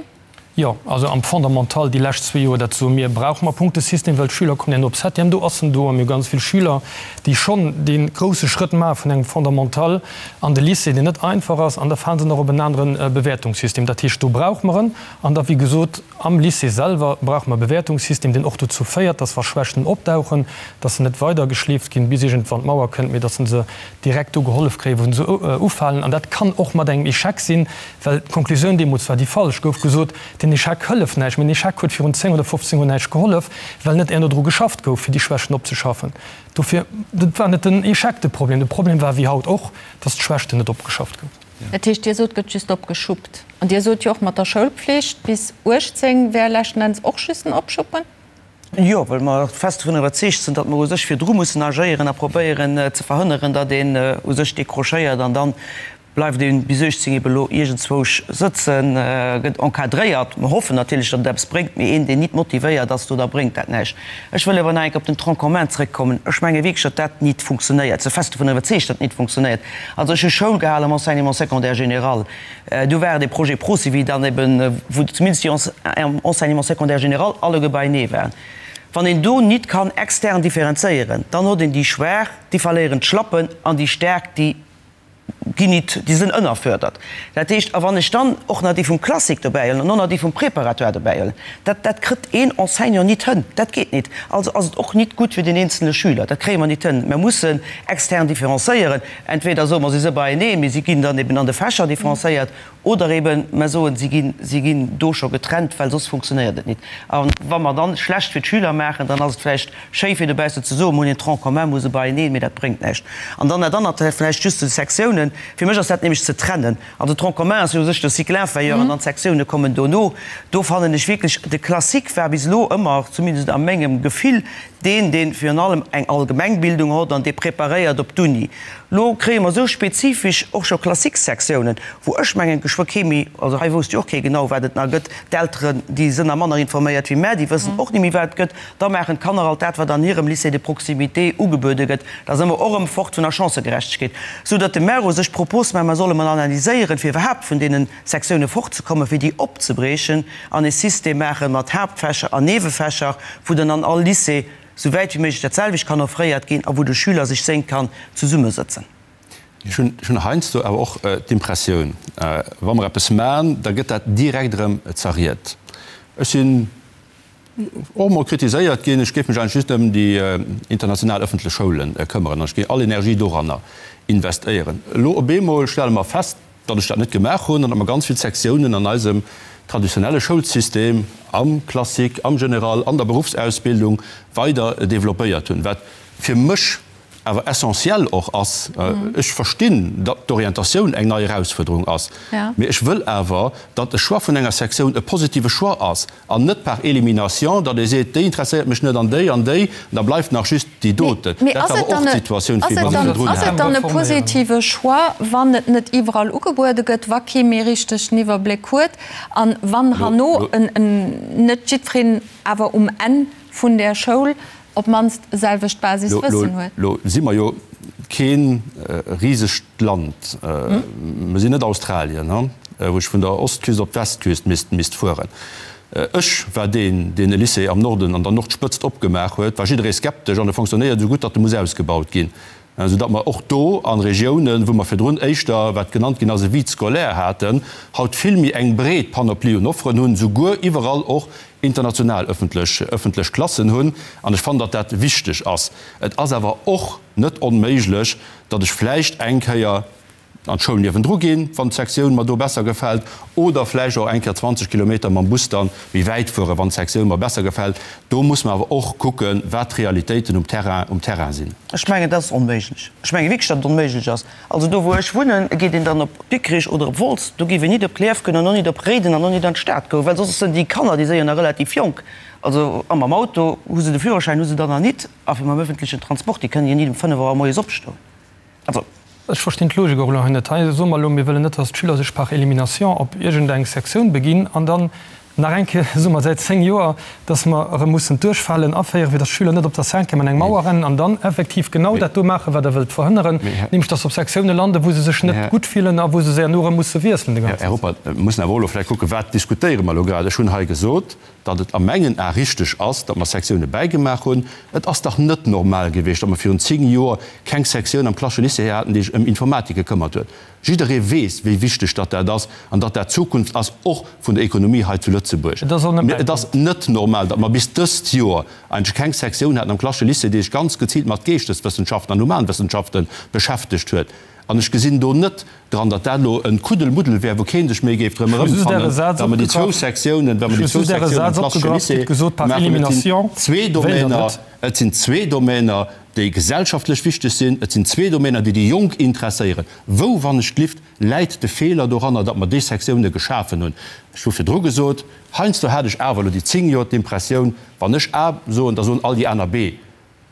Jo, also am Fondamental déi lescht zwee Joer, dat soe mir, brauche mer Punktesystem, well d'Schüler kommen herno op Septième, do ass en do a mir hu ganz vill Schüler, déi schonn dee grousse Schrëtt maache vun engem Fondamental an de Lycée, deen net einfach ass, an da fale se nach op en anere Bewäertungssystem. Dat heescht, do brauche mer en. An da wéi gesot, am Lycée selwer brauche mer e Bewäertungssystem, deen och dozou féiert, dass wa Schwächten opdauchen, dass se net weidergeschleeft ginn, bis iergendwann d'Mauer kënnt, mee dass se direkt do gehollef kréien, wou se ufalen. An dat kann och mat engem Echec sinn, well d'Konklusioun deemools war déi falsch, gouf gesot, den Echec hëlleft näischt. Mee den Echec huet virun 10 oder 15 Joer näischt gehollef, well net herno dru geschafft gouf, fir déi Schwächten opzeschaffen. Dofir, et war net den Echec de Problem. De Problem war, wéi haut och, dass d'Schwächten net opgeschafft goufen. Dat heescht, Dir sot, gëtt just opgeschuppt. An Dir sot jo och, mat der Schoulpflicht bis 18 wär leschten Enns och just en Opschuppen. Jo, well mer fest dovun iwwerzeegt sinn, datt mer u sech virdru mussen agéieren a probéieren ze verhënneren, datt een u sech décrochéiert an dann bleift ee bis 18 ebe lo iergendzwousch sëtzen, gëtt encadréiert. Mer hoffen natierlech, datt et eppes bréngt, mee een, deen nit motivéiert ass, do da bréngt dat näischt. Ech wëll awer nach eng Kéier op den Tronc commun zrëckkommen. Ech menge wierklech, datt dat nit funktionéiert. Ech si fest dovun iwwerzeegt, datt et nit funktionéiert. Also ech hu Schoul gehal am Enseignement secondaire général. Do war et e Projet Procivi dann eben, wou zumindest déi am Enseignement secondaire général alleguer beienee waren. Wann een do nit kann extern differenzéieren, dann hott een déi Schwaach, déi verléieren d'Schlappen, an déi Staark, déi ginn nit, déi sënn ënnerfördert. Dat heescht, a wann ech dann och nach déi vum Classique dobäihuelen an och nach déi vum Préparatoire dobäihuelen, dat, dat krëtt een Enseignant nit hënn. Dat geet nit. Also ass et och nit gutt fir den eenzele Schüler. Dat kréie mer nit hënn. Mer mussen extern differencéieren. Entweder soe mer, si si beieneen, mee si ginn dann eben an de Fächer differencéiert, oder eben mer soen, si ginn, si ginn do scho getrennt, well soss funktionéiert et nit. A wa mer dann schlecht fir d'Schüler maachen, dann ass et vläicht schéi fir dobaussen ze soen, mer hunn een Tronc commun, mer hu se beieneen, mee dat bréngt näischt. An dann dat anert, vläicht just zu de Sektiounen, Fir mech ass dat nämlech ze trennen. Also Tronc commun ass jo u sech de Cycle inférieur an dann d'Sektioune kommen dono. Do fannen ech wierklech, de Classique war bis elo ëmmer, zumindest a mengem Gefill, deen, dee virun allem eng Allgemengbildung hott an dee preparéiert op d'Uni. Lo kréie mer esou spezifesch och scho Classique-Sektiounen, wou ech mengen, geschwë kee méi, also hei wousst jo och kee genau, wat et nach gëtt, d'Elteren, déi sënn nach manner informéiert wéi mär, déi wëssen och ni méi, wat et gëtt. Da maachen d'Kanner alt dat, wat an hirem Lycée de proximité ugebuede gëtt. Da si mer och erëm fort vun der Chancëgerechtegkeet, sou datt de Maire u sech d'Propos maacht, mer solle mol analyséieren, fir iwwerhaapt vun deene Sektioune fortzekommen, fir déi opzebriechen an e System maache mat Haaptfächer an Niewefächer, wou dann an all Lycée sou wäit wéi méiglech dat selwecht kann offréiert ginn a wou de Schüler sech séngt kann zesummesëtzen. Ech hunn heiansdo awer och d'Impressioun, wa mer eppes maachen, da gëtt dat direkt erëm zerriet. Ech sinn och emol kritiséiert ginn, ech géif mech eigentlech just ëm déi international ëffentlech Schoule këmmeren an ech géif all Energie doranner investéieren. Elo op eemol stelle mer fest, datt ech dat net gemaach hunn an datt mer ganz vill Sektiounen an eisem traditionelle Schoulsystem, am Classique, am General, an der Beruffsausbildung weider developpéiert hunn, wat fir mech. awer essentiell och ass. Ech verstinn, datt d'Orientatioun eng nei Erausfuerderung ass, mee ech wëll awer, datt e Choix vun enger Sektioun e positive Choix ass an net par élimination, datt ee seet, déi interesséiert mech net an déi an déi, an da bleift nach just déi doten. Dat war awer och d'Situatioun, wéi mer se virdrun haten. Ass et dann e positive Choix, wann et net iwwerall ugebuede gëtt, wa kee méi richteg den Iwwerbléck huet an wann herno net jiddwereen awer um Enn vun där Schoul op d'mannst e selwecht Basiswëssen huet. Lo si mer jo kee risegt Land. Mer sinn net Australien, wou ech vun der Ostküst op d'Westküst misst fueren. Ech war deen, deen e Lycée am Norden, an der Nordspëtzt opgemaach huet, war jidderee skeptesch an e fonctionnéiert esou gutt, datt e muss ausgebaut ginn, soudatt mer och do a Regiounen, wou mer virdrun éischter, wat genannt ginn ass, e Vide scolaire haten, haut vill méi eng breet Panoplie un Offeren hunn, souguer iwwerall och international öffentlech öffentlech Klassen hunn. An ech fannen, datt dat wichteg ass. Et ass awer och net onméiglech, datt ech vläicht eng Kéier an d'Schoul niewendru ginn, wann d'Sektioun mer do besser gefält, oder vläicht och eng Kéier 20 Kilometer mam Bus dann méi wäit fueren, wann d'Sektioun mer besser gefält. Do muss mer awer och kucken, wat d'Realitéiten um Terrain um Terrain sinn. Ech mengen, dat ass onméiglech. Ech menge wierklech, datt et onméiglech ass. Also do wou ech wunnen, geet een dann op Dikrich oder op Wolz, do géif een nit op Clierf goen an och nit op Réiden an och nit an d'Stad goen, well soss sënn déi Kanner, déi si jo nach relativ jonk, also a mam Auto hu se de Führerschäin hu se dann nach nit, a fir mam öffentlichen Transport, déi kënnen jo nit um 5 Auer moies opstoen. Also. Ech verstinn d'Logik och elo hei net. Hei soe mer elo, mir wëllen net, datt d'Schüler sech par élimination op iergendeng Sektioun beginn an dann Nach eng Kéier soe mer säit 10 Joer, dass mer erëm mussen d'Duerchfalen aféieren, fir dass d'Schüler net op der Cinquième an eng Mauer rennen an dann effektiv genau dat do maachen, wat Der wëllt verhënneren, nämlech dass se op Sektiounen landen, wou se sech net gutt fillen a wou se herno erëm musse wiesselen de ganzen. Här Ruppert, mir mussen awer och elo vläicht kucken, Wat diskutéiere mer elo grad? Ech hunn hei gesot, datt et a mengen Ae richteg ass, datt mer Sektioune bäigemaach hunn. Et ass dach net normal gewiescht, datt mer virun 10 Joer keng Sektioun am Klassesche Lycée haten, déi sech ëm Informatik gekëmmert huet. Jidderee weess, wéi wichteg datt dat ass an datt dat d'Zukunft ass, och vun der Ekonomie hei zu Lëtzebuerg. Mee et ass net normal, datt mer bis dëst Joer eigentlech keng Sektioun haten am Klassesche Lycée, déi sech ganz geziilt mat Geeschteswëssenschaften an Humanwëssenschafte beschäftegt huet. An ech gesinn do net dran, datt dat elo e Kuddelmuddel wär, wou kee sech méi géif drëm erëmfannen, datt mer déi zwou Sektiounen, wa mer déi zwou Sektiounen am Klassesche Lycée maachen. Et sinn zwee Domäner, et sinn zwee Domäner, déi gesellschaftlech wichteg sinn. Et sinn zwee Domäner, déi déi Jonk interesséieren. Wou, wann ech glift, läit de Feeler doranner, datt mer déi Sektioune geschafen hunn? Ech hu virdru gesot, heiansdo hat ech awer elo déi 10 Joer d'Impressioun, wann ech A soen, da soen all déi aner B.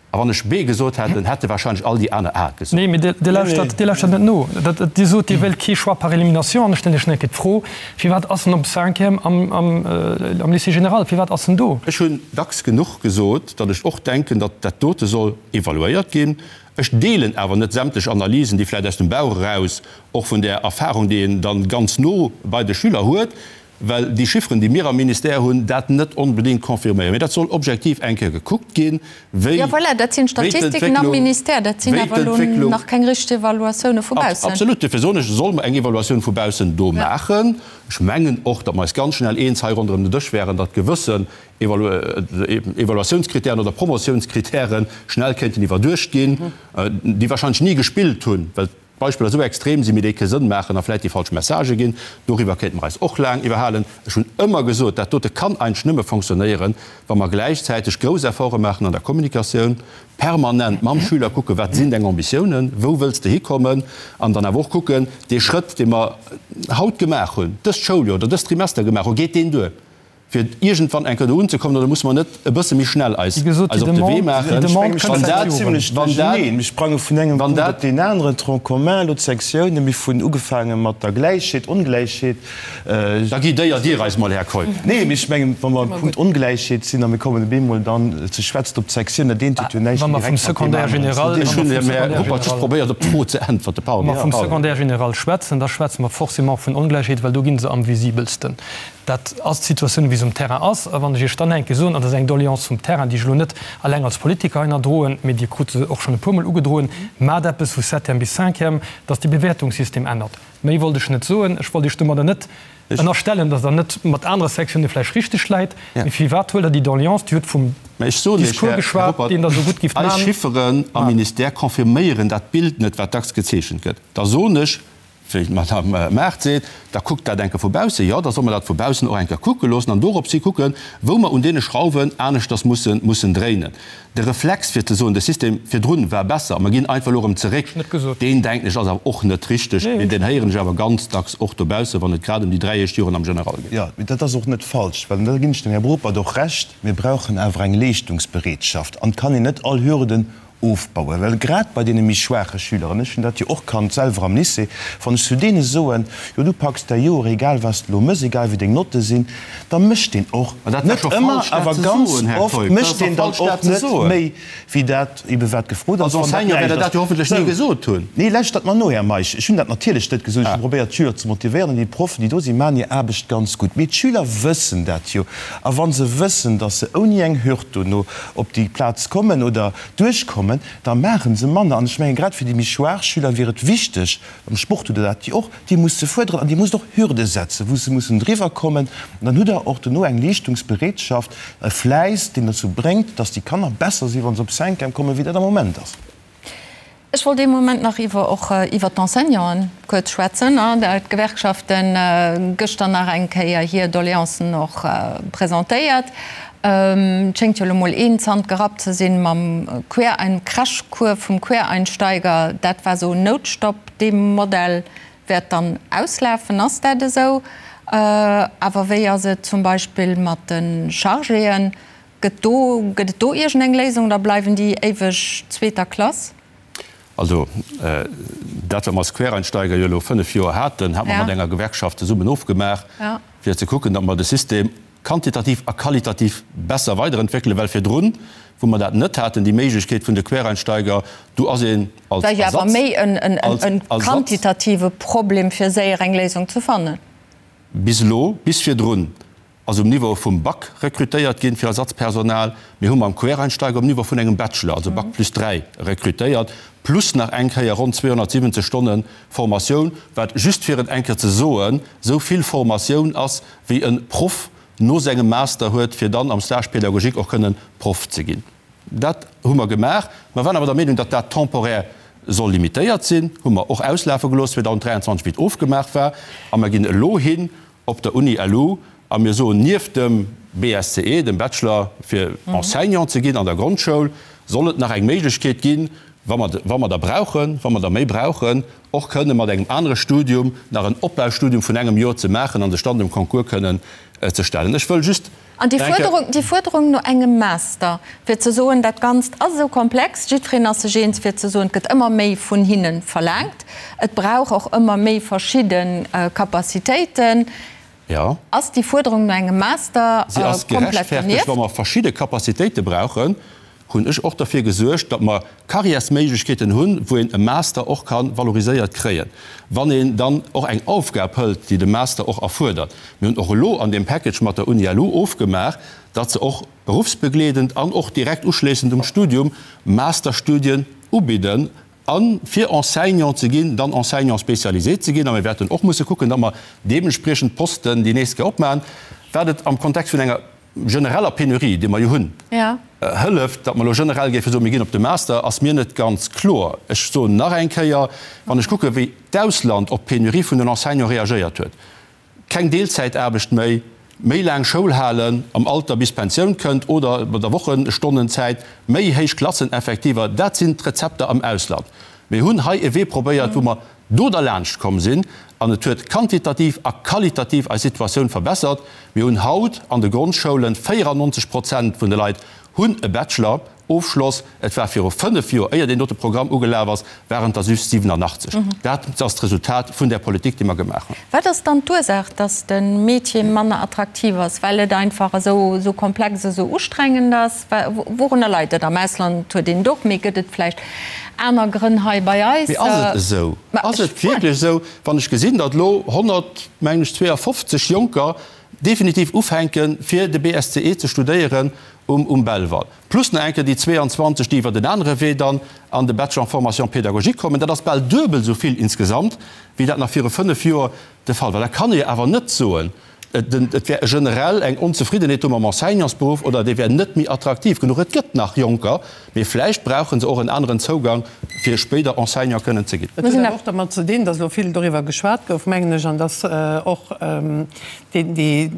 A wann ech B gesot hätt, dann hätte wahrscheinlech all déi aner A gesot. Nee, mee Dir lauschtert, Dir lauschtert net no. Dir sot, Dir wéilt kee Choix par élimination. An ech stellen Iech nach eng Kéier d'Fro, Firwat ass en op Cinquième am, am, am Lycée général? Firwat ass en do? Ech hunn dacks genuch gesot, datt ech och denken, datt dat dote soll evaluéiert ginn. Ech deelen awer net sämtlech Analysen, déi vläicht aus dem Bauch eraus, och vun där Erfahrung, déi een dann ganz no bei de Schüler huet, well déi Chifferen, déi mir am Ministère hunn, dat net onbedéngt confirméieren. Mee dat soll objektiv eng Kéier gekuckt ginn, wéi Jo, voilà, dat sinn d'Statistiken am Ministère, dat sinn awer elo nach keng richteg Evaluatioune vu baussen. Absolut, duerfir soen ech, solle mer eng Evaluatioun vu baussen do maachen. Ech mengen och, datt mer eis ganz schnell eens hei ronderëm den Dësch wären, datt gewëssen Evaluatiounskritären oder Promotiounskritäre schnell kéinten iwwerduecht ginn, déi wahrscheinlech ni gespillt hunn, well d'Beispiller esou extrem sinn, mee déi kee Sënn maachen a vläicht déi falsch Messagë ginn. Doriwwer kéinte mer eis och laang iwwerhalen. Ech hunn ëmmer gesot, dat dote kann eigentlech nëmme fonctionnéieren, wa mer gläichzäiteg grouss Efforte maachen an der Kommunikatioun, permanent mam Schüler kucken, wat sinn deng Ambitiounen, wou wëlls de hikommen, an dann awer och kucken, dee Schrëtt, dee mer haut gemaach hunn, dëst Schouljoer oder dëst Trimester gemaach hunn, geet deen duer? fir iergendwann eng Kéier do unzekommen, oder musse mer net e bësse méi schnell eis eis op de Wee maachen? Wann dat, wann dat, Mir sprange vun engem Punkt op deen aneren, Tronc commun, elo d'Sektiounen, mir hunn ugefaange mat der Gläichheet, Ongläichheet. Da guidéiert Dir eis mol, Här Keup. Nee, mee ech mengen, wa mer am Punkt Ongläichheet sinn a mir kommen op eemol dann ze schwätzen op d'Sektioun, dat eent huet jo näischt méi direkt mat deem aneren ze dinn. Ech hunn, Här Ruppert, just probéiert, op d'Fro ze äntwerten. Pardon. Wa mer vum Secondaire général schwätzen, da schwätze mer forcément vun Ongläichheet, well do gi se am visibelsten. Dat ass d'Situatioun, wéi se um Terrain ass. A wann ech Iech dann enke soen, an dat ass eng Doléance vum Terrain, déi ech elo net alleng als Politiker hei ënnerdroen, mee Dir krut se och schonn e puermol ugedroen, Maacht eppes vu Septième bis Cinquième, dass dee Bewäertungssystem ännert. Méi wollt ech net soen. Ech wollt Iech domadder net ënnerstellen, dass Der net mat anere Sektione vläicht richteg läit. Mee firwat huelt Der déi Doléance, Dir hutt vum Mä ech soen Iech, Discours Här geschwat, Ruppert, deen Der esou gutt gifft eis man. Chifferen am Ministère confirméieren dat Bild net, wat dacks gezeechent gëtt. Da soen ech. Wéi d'Madame Mart seet, da kuckt dat eng Kéier vu baussen. Jo, da soll mer dat vu baussen och eng Kéier kucke loossen an doropshi kucken, wou mer un deene Schrauwen aneschters mussen, mussen dréinen. De Reflex, fir ze soen, de System virdrun war besser a mer ginn einfach elo erëm zeréck, deen, denken ech, ass awer och net richteg. Mee deen héieren ech awer ganz dacks och dobaussen, wann et grad ëm déi 3 éischt Joren am General geet. Jo, mee dat ass och net falsch, well, an da ginn ech dem Här Ruppert och Recht, mir brauchen awer eng Leeschtungsbereetschaft an et kann een net all Hürden ofbauen, well grad bei deene méi schwaache Schüler, an ech hunn dat jo och kannt selwer am Lycée, wann ech zu deene soen, jo du packs däi Joer, egal wat s de elo méchs, egal wéi deng Notte sinn, da mécht deen och, net ëmmer, awer ganz oft mécht deen dann och net méi wéi dat ebe wat gefrot ass. Als Enseignant wäert Der dat jo hoffentlech ni gesot hunn. Nee, lauschtert mer no, Här Meisch, ech hunn dat natierlech net gesot. Ech hu probéiert d'Schüler ze motivéieren an déi Proffen, déi do sinn, maachen hir Aarbecht ganz gutt. Mee d'Schüler wëssen dat jo. A wa se wëssen, datt se ouni eng Hürd dono op déi Plaz kommen oder duerchkommen, da maache se manner. An ech mengen, grad fir déi méi schwaach Schüler wier et wichteg, am Sport hutt Der dat jo och, Dir musst se fuerderen an Dir musst och Hürde setzen, wou se mussen driwwer kommen. An dann hutt Der och dono eng Leeschtungsbereetschaft, e Fläiss, deen dozou bréngt, dass déi Kanner besser sinn, wa se op Cinquième kommen, wéi dat am Moment ass. Ech wollt ee Moment nach iwwer och iwwert d'Enseignanten kuerz schwätzen. D'Gewerkschaften gëschter nach eng Kéier hir Doleancen och presentéiert. Et schéngt jo elo mol een Zant gerappt ze sinn mam Querein Crashcours vum Quereinsteiger. Dat war esou en Noutstopp. Dee Modell wäert dann auslafen. Ass dat esou? Awer wéi ass et zum Beispill mat de Chargéen? Gëtt do, gëtt et do iergend eng Léisung oder bleiwen déi éiweg zweeter Klass? Also, dat wat mer als Quereinsteiger jo elo 5 Joer haten, hat mer mat enger Gewerkschaft zesummen ofgemaach, fir ze kucken, datt mer de System quantitativ a qualitativ besser weiderentwéckelen, well virdrun, wou mer dat net haten, déi Méiglechkeet vun de Quereinsteiger, do ass een als Ersatz, als Ersatz. War jo awer méi en quantitative Problem, fir séier eng Léisung ze fannen. Bis elo, bis virdrun ass um Niveau vum Bac rekrutéiert ginn fir Ersatzpersonal. Mir hu mam Quereinsteiger um Niveau vun engem Bachelor, also Bac plus 3, rekrutéiert, plus nach eng Kéier ronn 270 Stonne Formatioun, wat, just fir et eng Kéier ze soen, esou vill Formatioun ass, wéi e Proff no sengem Master huet, fir dann am Stage pédagogique och kënnen Proff ze ginn. Dat hu mer gemaach. Mer waren awer der Meenung, datt dat temporaire soll limitéiert sinn, hu mer och auslafe gelooss 2023, wéi et ofgemaach war. A mer ginn elo hin op der Uni LU a mir soen, nieft dem BSCE, dem Bachelor fir Enseignant ze ginn an der Grondschoul, soll et nach eng Méiglechkeet ginn, wa mer, wa mer der brauchen, wa mer der méi brauchen, och kënne mat engem anere Studium nach en Opbaustudium vun engem Joer ze maachen an sech dann dem Concours kënnen ze stellen. Ech wëll just An déi Fuerderung, déi Fuerderung no engem Master, fir ze soen, dat Ganzt ass esou komplex, jiddwereen ass sech eens, fir ze soen, et gëtt ëmmer méi vun hinne verlaangt, et brauch och ëmmer méi verschidde Capacitéiten, Jo. ass déi Fuerderung no engem Master Si ass komplett gerechtfertegt, dernieft? wa mer verschidde Capacitéite brauchen. Hunn ech och derfir gesuergt, datt mer Carrièresméiglechkeeten hunn, wou een e Master och ka valoriséiert kréien, wann een dann och eng Aufgab hëlt, déi de Master och erfuerdert. Mir hunn och elo an deem Package mat der Uni LU ofgemaach, datt se och beruffsbegleedend an och direkt uschléissend um Studium Masterstudien ubidden, a fir Enseignant ze ginn, dann Enseignant spécialisé ze ginn. A mir wäerten och musse kucken, datt mer deementspriechend Posten déi nächst Kéier opmaachen, wat et am Kontext vun enger genereller Penurie, déi mer jo hunn, hëlleft, datt mer elo generell géife soen, mir ginn op de Master, ass mir net ganz kloer. Ech soen nach eng Kéier, wann ech kucken, wéi d'Ausland op d'Penurie vun den Enseignants reagéiert huet, keng Deelzäitaarbecht méi, méi laang Schoul halen am Alter bis d'Pensioun kënnt oder bei der Wochenstonnenzäit, méi héich Klasseneffektiver, dat sinn d'Rezepter am Ausland. Mir hunn hei e Wee probéiert, wou mer do derlaanscht komm sinn an et huet quantitativ a qualitativ eis Situatioun verbessert. Mir hunn haut an de Grondschoulen 94 Prozent vun de Leit hunn e Bachelor Ofschloss. Et war viru 5 Joer, éier deen dote Programm ugelaf ass, waren et der just 87. Dat ass d'Resultat vun där Politik, déi mer gemaach hunn. Wat ass dann d'Ursaach, datt de Métier manner attraktiv ass? Well et einfach esou komplex, esou ustrengend ass? Wourunner leit et? Am Ausland huet een et och, mee gëtt et vläicht aner Grënn hei bei eis? Mee ass et esou? Ass et wierklech esou, wann ech gesinn, datt elo 100, mengen ech, 52 Jonker definitiv ufänken, fir de BSCE ze studéieren um Belval, plus nach eng Kéier déi 22, déi iwwert en anere Wee dann an de Bachelor en formation pédagogique kommen, dat ass bal duebel esou vill insgesamt, wéi dat nach viru fënnef Joer de Fall war. Da kann ee awer net soen, et wär generell eng Onzefriddenheet do mam Enseignantsberuff oder dee wär net méi attraktiv genuch. Et gëtt nach Jonker, mee vläicht brauche se och en aneren Zougang. fir spéider Enseignant kënnen ze ginn. Dat huet awer och dermat ze dinn, datt elo vill doriwwer geschwat gouf, mengen ech, an datt och dee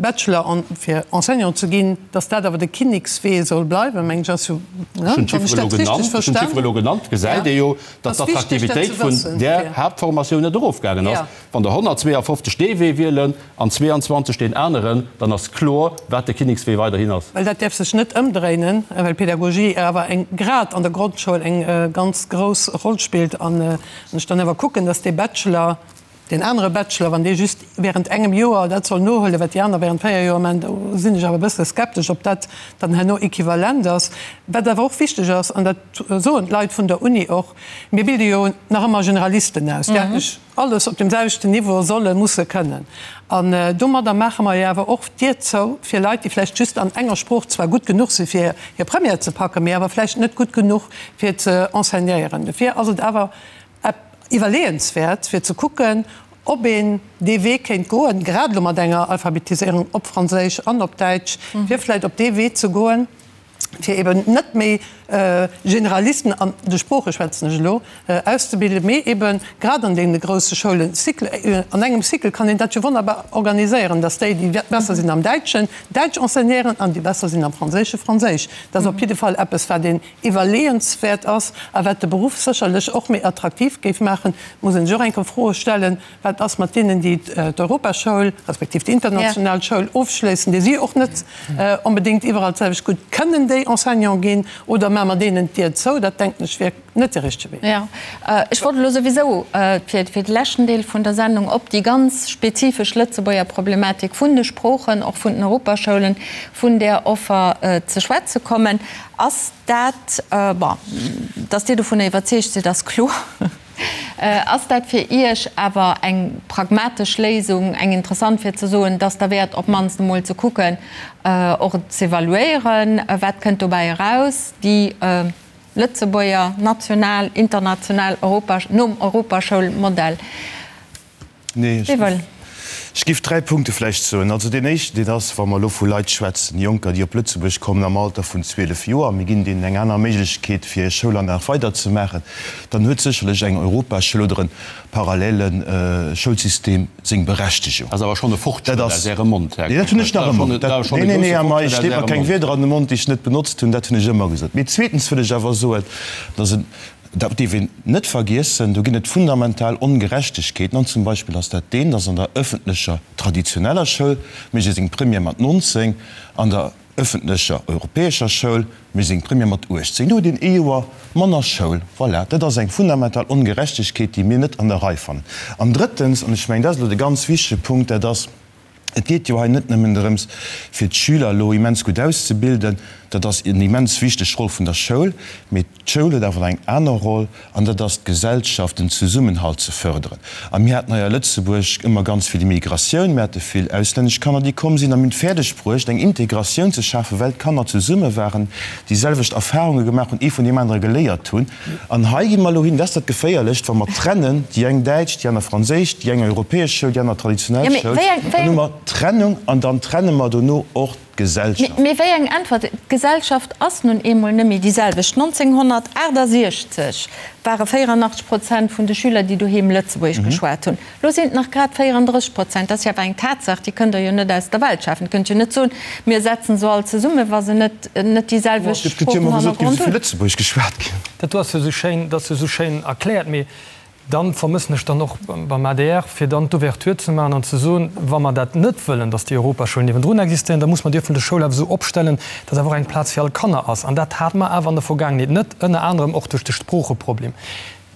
Bachelor fir Enseignant ze ginn, datt dat awer de Kinnekswee soll bleiwen, mengen ech, ass jo, ne, wann ech dat richteg verstanen. Ech hunn d'Chiffere elo genannt, gesäit ee jo, datt d'Attraktivitéit vun där Haaptformatioun net erofgaangen ass. Wann der 152 dee Wee wielen an 22 deen aneren, dann ass kloer, wat de Kinnekswee weiderhin ass. Well dat däerf sech net ëmdréinen, well Pedagogie awer eng, grad an der Grondschoul, eng ganz grouss Roll spillt. An ech dann awer kucken, dass dee Bachelor, deen anere Bachelor, wann dee just während engem Joer dat soll nohuelen, wat déi aner während 4 Joer maachen, do sinn ech awer e bësse skeptesch, ob dat dann herno equivalent ass. Wat awer och wichteg ass, an dat soen d'Leit vun der Uni och, Mir bilde jo nach ëmmer Generalisten aus, déi eigentlech alles op deem selwechten Niveau solle musse kënnen. An domadder maache mer jo awer och d'Dier zou fir Leit, déi vläicht just an enger Sprooch zwar gutt genuch si fir hir Première ze packen, mee awer vläicht net gutt genuch fir ze enseignéieren. Dofir ass et awer iwwerleeënswäert fir ze kucken, ob een dee Wee kéint goen, grad elo mat enger Alphabetiséierung op Franséisch an op Däitsch, fir vläicht op dee Wee ze goen, fir eben net méi Generalisten, an de Sprooche schwätzen ech elo, auszebilden, mee eben grad an deene grousse Schoulen, Cycle, an engem Cycle kann een dat jo wonnerbar organiséieren, dass déi, déi besser sinn am Däitschen, Däitsch enseignéieren an déi besser sinn am Franséische Franséisch. Dat ass op jidde Fall eppes, wat een iwwerleeënswäert ass a wat de Beruff sécherlech och méi attraktiv géif maachen. Et muss een sech och eng Kéier Froe stellen, Wat ass mat deenen, déi d'Europaschoul, respektiv déi international Schoul ofschléissen, déi si och net onbedéngt iwwerall d'selwecht gutt kënnen déi Enseignant ginn? Oder maache mer deenen d'Dier zou? Dat, denken ech, wier net de richtege Wee. Jo, ech wollt elo souwisou fir de leschten Deel vun der Sendung op déi ganz spezifesch Lëtzebuerger Problematik vun de Sproochen, och vun den Europaschoulen, vun där Offer ze schwätze kommen. Ass dat, bon, datt Dir dovunner iwwerzeegt sidd, ass kloer. Ass dat fir Iech awer eng pragmatesch Léisung, eng interessant, fir ze soen, dass derwäert op d'mannst emol ze kucken, och et z'evaluéieren, wat kënnt dobäi eraus, déi Lëtzebuerger national, international Europa, nom Europaschoulmodell? Nee, ech giff 3 Punkte vläicht soen. Also deen éischten, deen ass, wa mer elo vu Leit schwätzen, Jonker, déi op Lëtzebuerg kommen am Alter vun 12 Joer, mir ginn deenen eng aner Méiglechkeet, fir hir Schoulanlag weiderzemaachen, dann huet sécherlech eng Europaschoul oder e parallele Schoulsystem seng Berechtegung. Dat ass awer schonn e Fortschrëtt aus Ärem Mond, Här Nee, dat hunn ech nach ëmmer. Nee, nee, nee, Här Meisch, leet mer keng Wierder an de Mond, déi ech net benotzt hunn. Dat hunn ech ëmmer gesot. Mee zweetens wëll ech awer soen, dass en Dat dierf een net vergiessen. Do ginn et fundamental Ongerechtegkeeten. An zum Beispill ass dat deen, dass an der öffentlecher traditioneller Schoul mécht ee seng Première mat 19, an der öffentlecher europäescher Schoul mécht ee seng Première mat 18. Do huet een ee Joer manner Schoul. Voilà, dat ass eng fundamental Ongerechtegkeet, déi mir net an der Rei fannen. An drëttens, an ech mengen, dat ass elo de ganz wichtege Punkt, dat ass, Et geet jo hei net nëmmen drëms, fir d'Schüler elo immens gutt auszebilden, dat ass en immens wichteg Roll vun der Schoul, mee d'Schoul huet awer nach eng aner Roll, an dat ass d'Gesellschaft, den Zesummenhalt ze förderen. A mir haten hei a Lëtzebuerg ëmmer ganz vill Immigratioun, mir hate vill auslännesch Kanner, déi komm sinn, a mir hunn et fäerdeg bruecht, eng Integratioun ze schafen, well d'Kanner zesumme waren, déi selwecht Erfahrunge gemaach hunn, ee vun deem anere geléiert hunn. An hei gi mer elo hin, dat ass dat Geféierlecht, wa mer trennen, déi eng däitsch, déi aner franséisch, déi eng europäesch Schoul, déi aner traditionell Schoul, dann hu mer Trennung an dann trenne mer dono och d'Gesellschaft. Mee wéi eng Äntwert? D'Gesellschaft ass nun eemol net méi déi selwecht. 1968 ware 84 Prozent vun de Schüler, déi doheem Lëtzebuergesch geschwat hunn. Lo sinn et nach grad 34 Prozent. Dat ass jo awer eng Tatsaach, déi kënnt Der jo net aus der Welt schafen. Dir kënnt jo net soen, mir setzen se all zesummen, wa se net net déi selwecht Et gëtt jo ëmmer gesot, géif esou vill Lëtzebuergesch geschwat ginn. Dat do ass jo esou schéin, dat ass jo esou schéin erkläert. Mee dann vermëssen ech dann och beim adr, fir dann d'Ouverture ze maachen an ze soen, wa mer dat net wëllen, datt déi Europaschoul niewendrun existéieren, da muss mer déi öffentlech Schoul awer esou opstellen, datt awer och eng Plaz fir all Kanner ass. An dat hate mer awer an der Vergaangenheet net, ënner anerem och duerch de Sproocheproblem.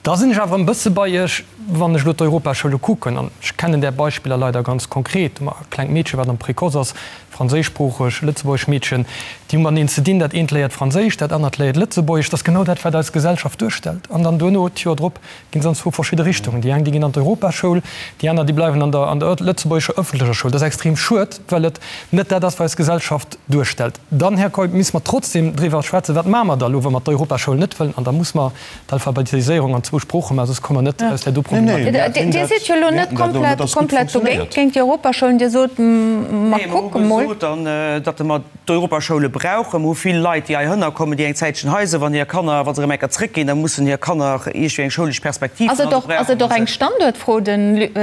Da sinn ech awer en bësse bei Iech, wann ech elo d'Europaschoule kucken, an ech kennen där Beispiller leider ganz konkret, e klengt Meedche wat am Précoce ass, franséischsproocheg, lëtzebuergesch Meedchen, déi hu mateneen ze dinn, dat eent léiert Franséisch, dat anert léiert Lëtzebuergesch, dat ass genau dat wat eis Gesellschaft duerstellt. An dann duerno, d'Joer drop, ginn se an zwou verschidde Richtungen, déi eng déi ginn an d'Europaschoul, déi aner déi bleiwen an der an der lëtzebuergescher ëffentlecher Schoul. Dat ass extrem schued, well et net dat ass wat eis Gesellschaft duerstellt. Dann, Här Keup, misst mer trotzdem driwwer schwätzen, wat maache mer da elo, wa mer d'Europaschoul net wëllen, an da muss mer d'Alphabetiséierung an zwou. puer Sprooche maachen, soss komme mer net aus där do Problematik. Dir sidd jo elo net komplett, komplett dogéint, géint déi Europaschoulen. Dir sot, mer kucke mol. Nee, mer hu gesot, datt mer d'Europaschoule brauchen. Mer hu vill Leit, déi heihinner kommen, déi eng Zäitchen hei sinn. Wann hir Kanner, wa se erëm eng Kéier zrëckginn, da mussen hir Kanner iergendwéi eng schoulesch Perspektiv hunn. Also brauche Ass et och eng Standuertfro? De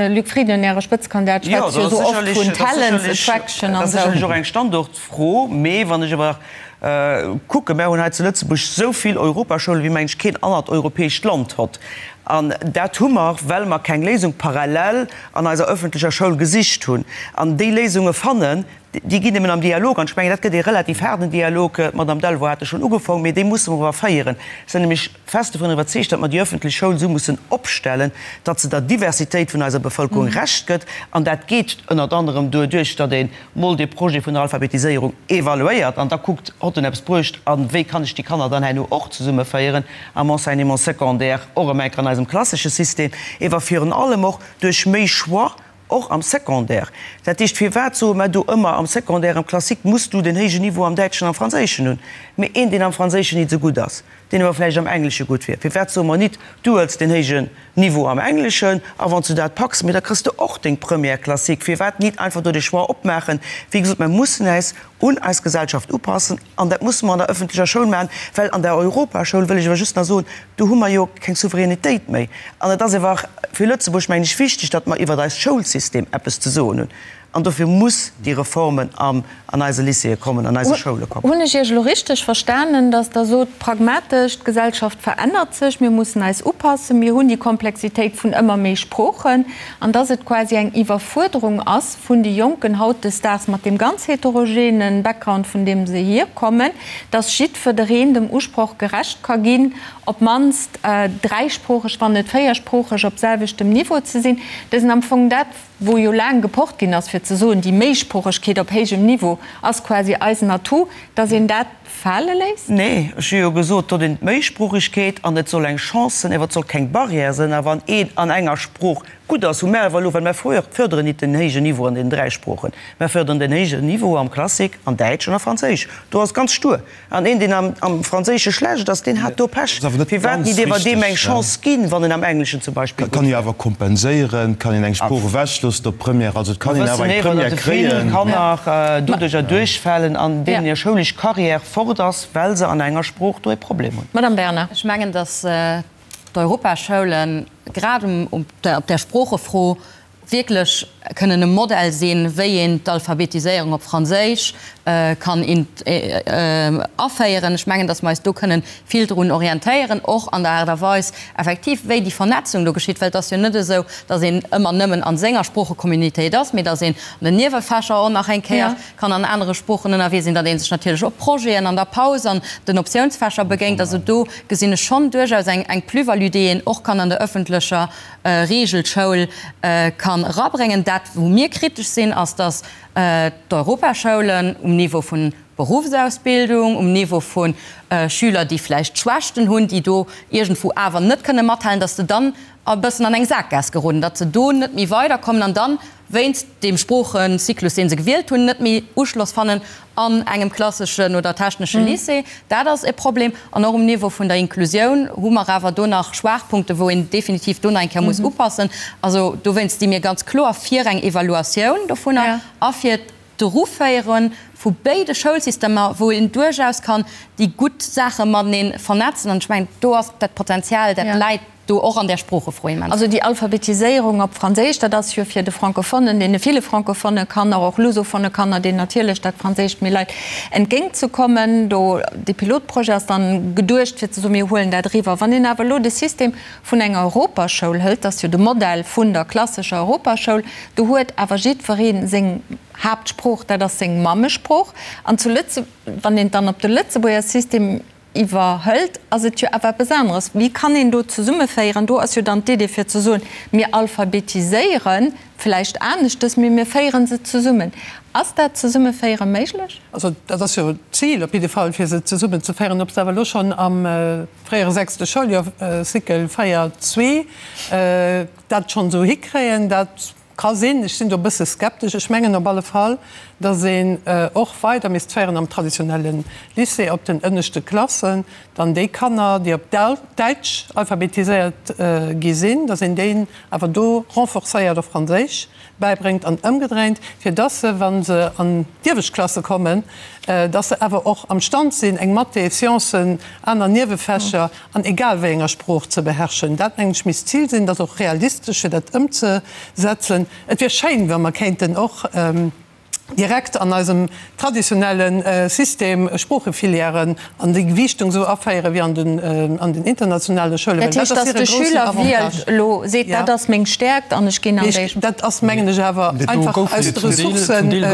Luc Frieden, Äre Spëtzekandidat, schwätzt jo esou oft vun Talents attraction an esou. Dat ass sécherlech och eng Standortfro. Mee wann ech awer kucken, Mär hunn hei zu Lëtzebuerg esou vill Europaschoulen, wéi mengen ech keen anert europäescht Land hott. An dat hu mer, well mer keng Léisung parallel an eiser öffentlecher Schoul gesicht hunn. An déi Léisunge fannen, déi ginn nëmmen am Dialog. An ech mengen, dat gëtt ee relativ haarden Dialog, d'Madame Delvaux hat e schonn ugefaang, mee dee musse mer awer féieren. Ech sinn nämlech fest dovun iwwerzeegt, datt mer déi öffentlech Schoul esou mussen opstellen, datt se der Diversitéit vun eiser Bevëlkerung Recht gëtt. An dat geet ënnert anerem doduerch, datt ee mol dee Projet vun der Alphabetiséierung evaluéiert an da kuckt, Hott en eppes bruecht a wéi kann ech déi Kanner dann herno och zesummeféieren am Enseignement secondaire, och erëm eng Kéier an eisem klassesche System, ewer virun allem och duerch méi Choix och am Secondaire. Dat heescht, firwat soe mer do ëmmer, am Secondaire, am Classique muss du den héijen Niveau am Däitschen, am Franséischen hunn, mee een, deen am Franséischen nit esou gutt ass, deen awer vläicht am Englesche gutt wier, firwat soe mer nit, du huels den héijen Niveau am Engleschen a wann s du dat packs, mee da kriss de och deng Première classique. Firwat nit einfach do de Choix opmaachen? Wéi gesot, mer mussen äis un eis Gesellschaft upassen an dat musse mer an der öffentlecher Schoul maachen, well an der Europaschoul, wëll ech awer just nach soen, do hu mer jo keng Souveränitéit méi. An et ass awer fir Lëtzebuerg, mengen ech, wichteg, datt mer iwwert eist Schoulsystem eppes ze soen hunn. An dofir muss déi Reformen an eise Lycéeë kommen, an eise Schoule kommen. Hunn ech Iech elo richteg verstanen, datt Der sot, pragmatesch, d'Gesellschaft verännert sech, mir mussen eis upassen, mir hunn déi Komplexitéit vun ëmmer méi Sproochen, an datt et quasi eng Iwwerfuerderung ass vun de Jonken hautdesdaags mat deem ganz heterogenen Background, vun deem se hierkommen, datt jiddwereen dem Usproch gerecht ka ginn, op d'mannst dräisproocheg, wann net véiersproocheg op selwechtem Niveau ze sinn? Dat ass am Fong dat, wou jo laang gepocht ginn ass, fir ze soen, déi Méisproochegkeet op héijem Niveau ass quasi eisen Atout, dass een dat fale léisst? Nee, ech hu jo gesot, dot een d'Méisproochegkeet an et soll eng Chance sinn, awer et soll keng Barrière sinn. A wann een an enger Sprooch gutt ass, hu mär awer elo, well mär förderen nit den héijen Niveau an den 3 Sproochen, mär förderen den héijen Niveau am Classique, an Däitsch an a Franséisch, do ass ganz stur. An een, deen am Franséische schlecht ass, deen hat do Pech. Firwat nit ewer deem eng Chance ginn, wann en am Engleschen zum Beispill gutt Kann ee awer kompenséieren, kann een eng Sprooch ewechloossen op Première, also et kann een awer eng Première kréien. Mer wëssen ewer, datt vill Kanner doduercher duerchfalen an deenen hir schoulesch Carrière fort ass, well se an enger Sprooch do e Problem hunn. Madame Bernard. Ech mengen, datt d'Europaschoulen grad op där Sproochefro wierklech kënnen e Modell sinn, wéi een d'Alphabetiséierung op Franséisch kann aféieren. Ech mengen, datt mer eis do kënnen vill drun orientéieren, och an der Aart a Weis effektiv, wéi déi Vernetzung do geschitt, well et ass jo net esou, datt een ëmmer nëmmen a senger Sproochecommunitéit ass, mee datt een an den Niewefächer och nach eng Kéier kann an anere Sproochen ënnerwee sinn, datt ee sech natierlech och Projeten an der Paus an den Optiounsfächer begéint. Also do gesinn ech schonn duerchaus eng Plus-value, déi een och kann an der öffentlecher Regelschoul kann erabréngen. Dat, wou mir kritesch sinn, ass, dass d'Europaschoulen um Niveau vun Berufsausbildung, um Niveau vu Schüler, déi vläicht Schwächten hunn, déi do iergendwou awer net kënne mathalen, dass se dann e bëssen an eng Saakgaass geroden, datt se do net méi weiderkommen an dann wéinst deem Sproochecyclus, dee se gewielt hunn, net méi Uschloss fannen an engem klasseschen oder technesche Lycée. Dat ass e Problem. An och um Niveau vun der Inklusioun hu mer awer do nach Schwaachpunkten, wou een definitiv do nach eng Kéier muss upassen. Also dowéinst sti mir ganz kloer fir eng Evaluatioun dovunner a fir d'Eruféiere vu béide Schoulsystemer, wou een duerchaus kann déi gutt Saache matenee vernetzen. An ech mengen, do ass dat Potenzial, dat läit do och an där Sproochefro immens. Also déi Alphabetiséierung op Franséisch, dat ass jo fir de Francophonen, deene ville francophone Kanner, och lusophone Kanner, deenen natierlech dat Franséischt méi leit, entgéintzekommen. Do, dee Pilotprojet ass dann geduecht fir ze soen, mir huelen dat eriwwer. Wann een awer elo de System vun enger Europaschoul hëlt, dat ass jo de Modell vun der klassescher Europaschoul, do huet awer jiddweree seng Haaptsprooch, dat ass seng Mammesprooch. An zu Lëtze, wann een et dann op de Lëtzebuerger System Iwwerhëlt, ass et jo awer eppes aneres. Wéi kann een do zesummeféieren? Do ass jo dann d'Idee fir ze soen, mir alphabetiséiere vläicht aneschtes, mee mir féiere se zesummen. Ass dat Zesummeféiere méiglech? Also dat ass jo d'Zil op jidde Fall, fir se zesummenzeféieren. Ob se awer elo schonn am fréiere sechste Schouljoer, Cycle 4, 2, dat schonn esou hikréien, dat. Ka sinn, ech sinn do e bësse skeptesch. Ech mengen op alle Fall, datt een och weider misst féieren am traditionelle Lycée op den ënneschte Klassen, dann déi Kanner, déi op Däitsch alphabetiséiert gi sinn, datt een déi awer do renforcéiert op Franséisch bäibréngt an ëmgedréint, fir datt se, wa se an d'iewescht Klasse kommen, datt se awer och am Stand sinn, eng Mathé, Sciencen, aner Niewefächer an egal wéi enger Sprooch ze beherrschen. Dat, mengen ech, misst d'Zil sinn. Dat ass och realistesch, fir dat ëmzesetzen. Et wier schéin, wa mer kéinten och direkt an eisem traditionelle System Sproochefilièren an déi Gewiichtung esou aféieren, wéi an den, an den internationale Schoulen, well dat ass hire groussen Avantage. Dat heescht, dass de Schüler wielt elo, seet, dat ass meng Stäerkt an ech ginn an déi. Dat ass, mengen ech, awer einfach aus de Ressourcen,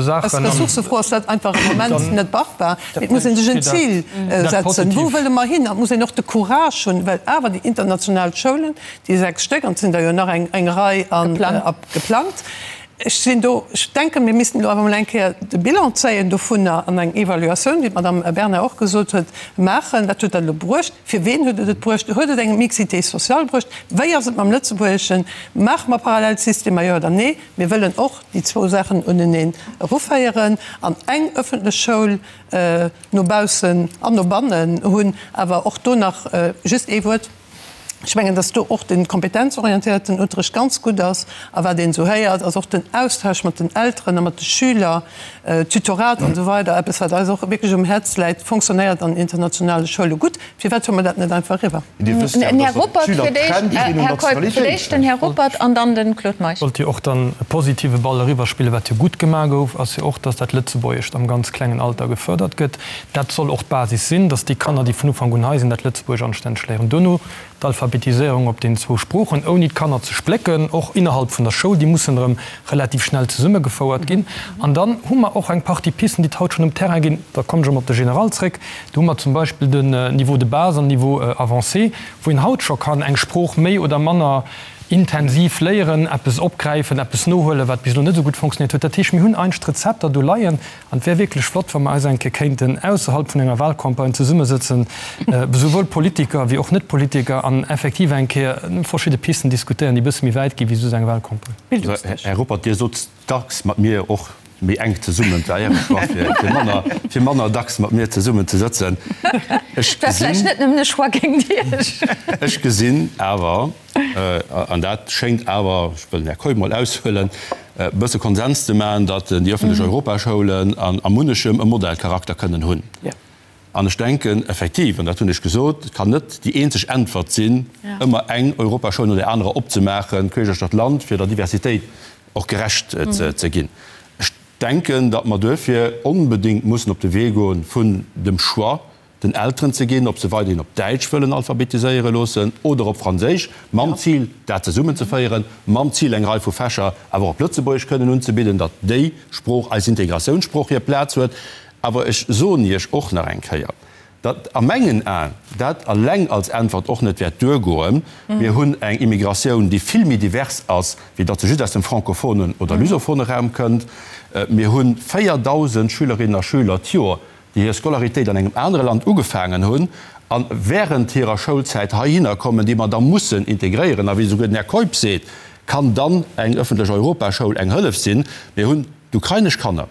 aus Ressourcefro ass dat einfach am Moment net machbar. Et muss ee sech en Zil setzen, Wou wëlle mer hin? An et muss een och de Courage hunn, well awer déi international Schoulen, déi 6 Stéck, an et sinn der jo nach eng Rei geplangt, ech sinn do, ech denken, mir missten elo awer emol eng Kéier de Bilan zéien dovunner an eng Evaluatioun, wéi d'Madame Bernard och gesot huet, maachen. Wat huet dat elo bruecht? Fir ween huet et et bruecht? Huet et eng Mixité sociale bruecht? Wéi ass et mam Lëtzebuergeschen? Maache mer Parallelsystemer, jo oder nee? Mir wëllen och déi zwou Saachen uneneen eruféieren an eng öffentlech Schoul no baussen an no bannen hunn. Awer och do nach just ee Wuert. Ech mengen, dass do och de kompetenzorientéierten Unterrecht ganz gutt ass. A wat een esou héiert, ass och den Austausch mat den Elteren a mat de Schüler, Tutorat an esou weider, eppes, wat eis och wierklech um Häerz läit, fonctionnéiert an internationale Schoule gutt. Firwat huele mer dat net einfach eriwwer? Dir wësst jo, dass och d'Schüler d'Trend ginn un Nationalitéit. Den Här Ruppert an dann de Claude Meisch. Wollt jo och dann e positive Ball eriwwerspillen. Wat jo gutt gemaach gouf, ass jo och, dass dat Lëtzebuergescht am ganz klengen Alter gefërdert gëtt. Dat soll och d'Basis sinn, dass déi Kanner, déi vun Ufank un hei sinn, dat Lëtzebuergesch anstänneg léieren. Duerno d'Alphabetiséierung op den zwou Sproochen, ouni d'Kanner ze splécken, och innerhalb vun der Schoul, déi mussen erëm relativ schnell zesummegefouert ginn. An dann hu mer och eng Partie Pisten, déi et haut schonn um Terrain ginn. Da kommen ech erëm op de General zréck. Do hu mer zum Beispill den Niveau de base an Niveau avancé, wou een haut scho kann eng Sprooch méi oder manner intensiv léieren, eppes opgräifen, eppes nohuelen, wat bis elo net esou gutt fonctionnéiert huet. Dat heescht, mir hunn eigentlech d'Rezepter do leien. An et wär wierklech flott, wa mer eis eng Kéier kéinten ausserhalb vun enger Wahlcampagne zesummesëtzen, esouwuel Politiker wéi och Net-Politiker, an effektiv eng Kéier verschidde Pisten diskutéieren, déi e bësse méi wäit gi wéi just eng Wahlcampagne. Här Ruppert, Dir sot dacks mat mir och méi enk zesummen, et war Äre Choix, fir manner, fir manner dacks mat mir zesummen ze sëtzen. Ech war vläicht net nëmmen e Choix géint Iech. Ech gesinn awer, an dat schéngt awer, ech wëll den Här Keup mol aushuelen, e bësse Konsens ze maachen, datt déi öffentlech Europaschoulen a munnechem e Modellcharakter kënnen hunn. An ech denken effektiv, an dat hunn ech gesot, et kann net déi eenzeg Äntwert sinn, ëmmer eng Europaschoul no där anerer opzemaachen, queesch duerch d'Land, fir der Diversitéit och gerecht ze ginn. Ech denken, datt mer duerfir onbedéngt mussen op de Wee goen vun dem Choix den Elteren ze ginn, ob se weiderhin op Däitsch wëllen alphabetiséiere loossen oder op Franséisch, mam Zil, dat zesummenzeféieren, mam Zil, eng Rei vu Fächer awer och op Lëtzebuergesch kënnen unzebidden, datt déi Sprooch, eis Integratiounssprooch, hir Plaz huet. Awer ech soen Iech och nach eng Kéier, datt a mengen Aen dat eleng als Äntwert och net wäert duergoen. Mir hunn eng Immigratioun, déi vill méi divers ass, wéi datt se just aus dem francophonen oder lusophone Raum kënnt. Mir hu 4.000 Schülerinnen a Schüler d'Joer, déi hir Scolaritéit an engem anere Land ugefaangen hunn a während hirer Schoulzäit heihinner kommen, déi mer da mussen integréieren. A wéi esouguer den Här Keup seet, kann dann eng öffentlech Europaschoul eng Hëllef sinn. Mir hunn d'ukrainesch Kanner,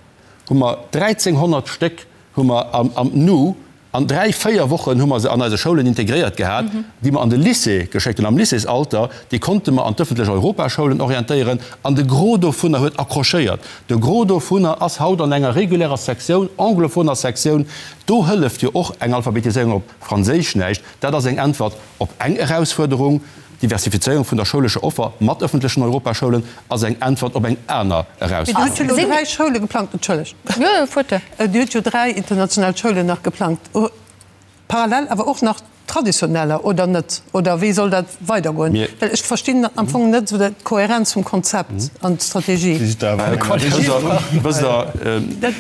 hu mer 1.300 Stéck hu mer am Nu an dräi, véier Wochen hu mer se an eise Schoulen integréiert gehat, déi mer an de Lycée geschéckt hunn, am Lycéesalter, déi konnte mer an d'öffentlech Europaschoulen orientéieren an de Gros dovunner huet accrochéiert. De Gros dovunner ass haut an enger regulärer Sektioun, anglophoner Sektioun. Do hëlleft jo och eng Alphabetiséierung op Franséisch näischt. Dat ass eng Äntwert op eng Erausfuerderung. D'Diversifizéierung vun der schoulescher Offer mat ëffentlechen Europaschoulen ass eng Äntwert op eng aner Erausfuerderung. Dir hutt jo elo dräi Schoule geplangt, entschëllegt, Dir hutt jo dräi international Schoulen nach geplangt. Parallel awer och nach traditioneller, oder net? Oder wéi soll dat weidergoen? Well ech verstinn am Fong net esou d'Kohärenz vum Konzept an d'Strategie.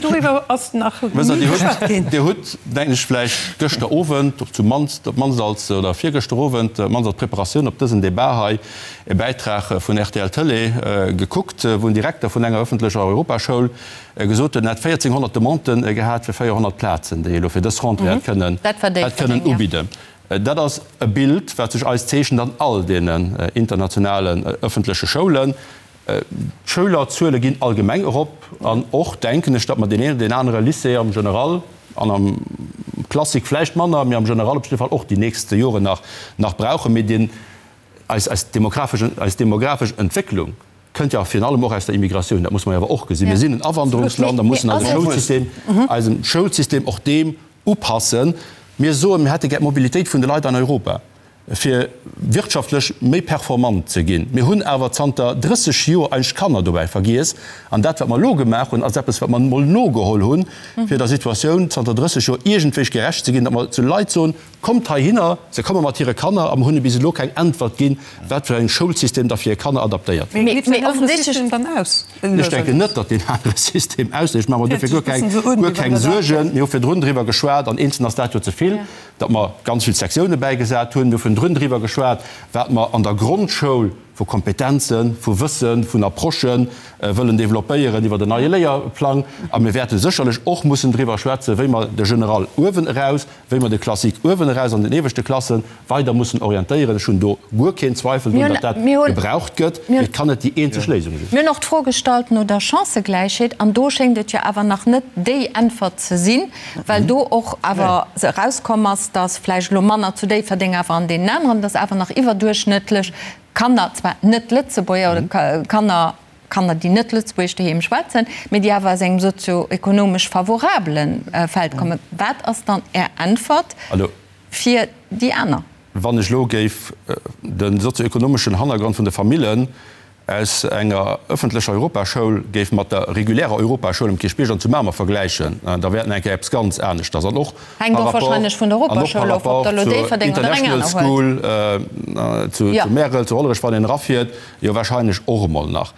Doriwwer ass nach ni geschwat ginn. Dir hutt, denken ech, vläicht gëschter Owend, op zumannst, op d'mannst als, oder virgëschter Owend, op d'mannst als Preparatioun op dësen Debat hei, e Bäitrag vun rtl Tëlee gekuckt, wou en Direkter vun enger ëffentlecher Europaschoul Gesot huet, en hätt 1.400 Demanden gehat fir 400 Plazen, déi e lo fir dës Rentrée hätt kënnen, hätt kënnen ubidden. Dat ass e Bild, wat sech eis zeechent an all deenen internationalen ëffentleche Schoulen. D'Schülerzuele ginn allgemeng erop an och, denken ech, datt mer deen een oder deen anere Lycée am General an am Classique vläicht manner, mee am General op jidde Fall och déi nächst Joren nach nach brauchen. Mee deen, eis, eis demografesch, eis demografesch Entwécklung kënnt jo virun allem och aus der Immigratioun. Dat muss mer jo awer och gesinn. Mir sinn en Awanderungsland a mussen eise Schoulsystem, eisem Schoulsystem och deem upassen. Mir soen, mir hätte gär d'Mobilitéit vun de Leit an Europa. fir wirtschaftlech méi performant ze ginn. Mir hunn awer zanter 30 Joer eigentlech d'Kanner dobäi vergiess. An dat, wat mer elo gemaach hunn, ass eppes, wat mer emol nogeholl hunn, fir der Situatioun zanter 30 Joer iergendwéi gerecht ze ginn, datt mer zu Leit soen, Kommt heihinner! Se komme mat hire Kanner a mer hunn hinne bis elo keng Äntwert ginn, wat fir eng Schoulsystem da fir hir Kanner adaptéiert wier. Mee deen anere System dann aus? Ech denken net, datt deen anere System ausléist. Ech maache mer dofir guer keng Suergen. Mir hu virdrun driwwer geschwat, an eenzeln ass dat jo ze vill. datt mer ganz vill Sektioune bäigesat hunn. Mir hu vun drun driwwer geschwat, wat mer an der Grondschoul vu Kompetenzen, vu Wëssen, vun Approchë wëllen developpéieren iwwer en neie Léierplang. A mir wäerte sécherlech och mussen driwwer schwätzen, wéi mer de General uewen eraus, wéi mer de Classique uewen eraus an den ieweschte Klasse weider mussen orientéieren. Ech hunn do guer keen Zweifel drun, datt dat gebraucht gëtt, mee et kann net déi eenzeg Léisung sinn. Mir hunn och d'Fro gestallt no der Chancëgläichheet, an do schéngt et jo awer nach net déi Äntwert ze sinn, well do och awer erauskomm ass, datt vläicht elo manner zu Déifferdeng, awer an deenen aneren, datt awer nach iwwerduerchschnëttlech Kanner, zwar net Lëtzebuerger oder Kanner, Kanner, déi net Lëtzebuergesch doheem schwätzen, mee déi awer aus engem sozio-ekonomesch favorabele Feld kommen. Wat ass dann Är Äntwert fir déi aner? Wann ech elo géif de sozio-ekonomeschen Hannergrond vun de Famillen aus enger ëffentlecher Europaschoul géif mat der regulärer Europaschoul um Kierchbierg an zu Mamer vergläichen, da wär et nach eng Kéier eppes ganz aneschters. An och Hänkt par och rapport, wahrscheinlech vun der an och par Europaschoul of, ob rapport der elo zur Déifferdeng oder eng International aner huelt. School zu Jo. Märel, zu Hollerech, wann een erafiert, jo wahrscheinlech och emol nach.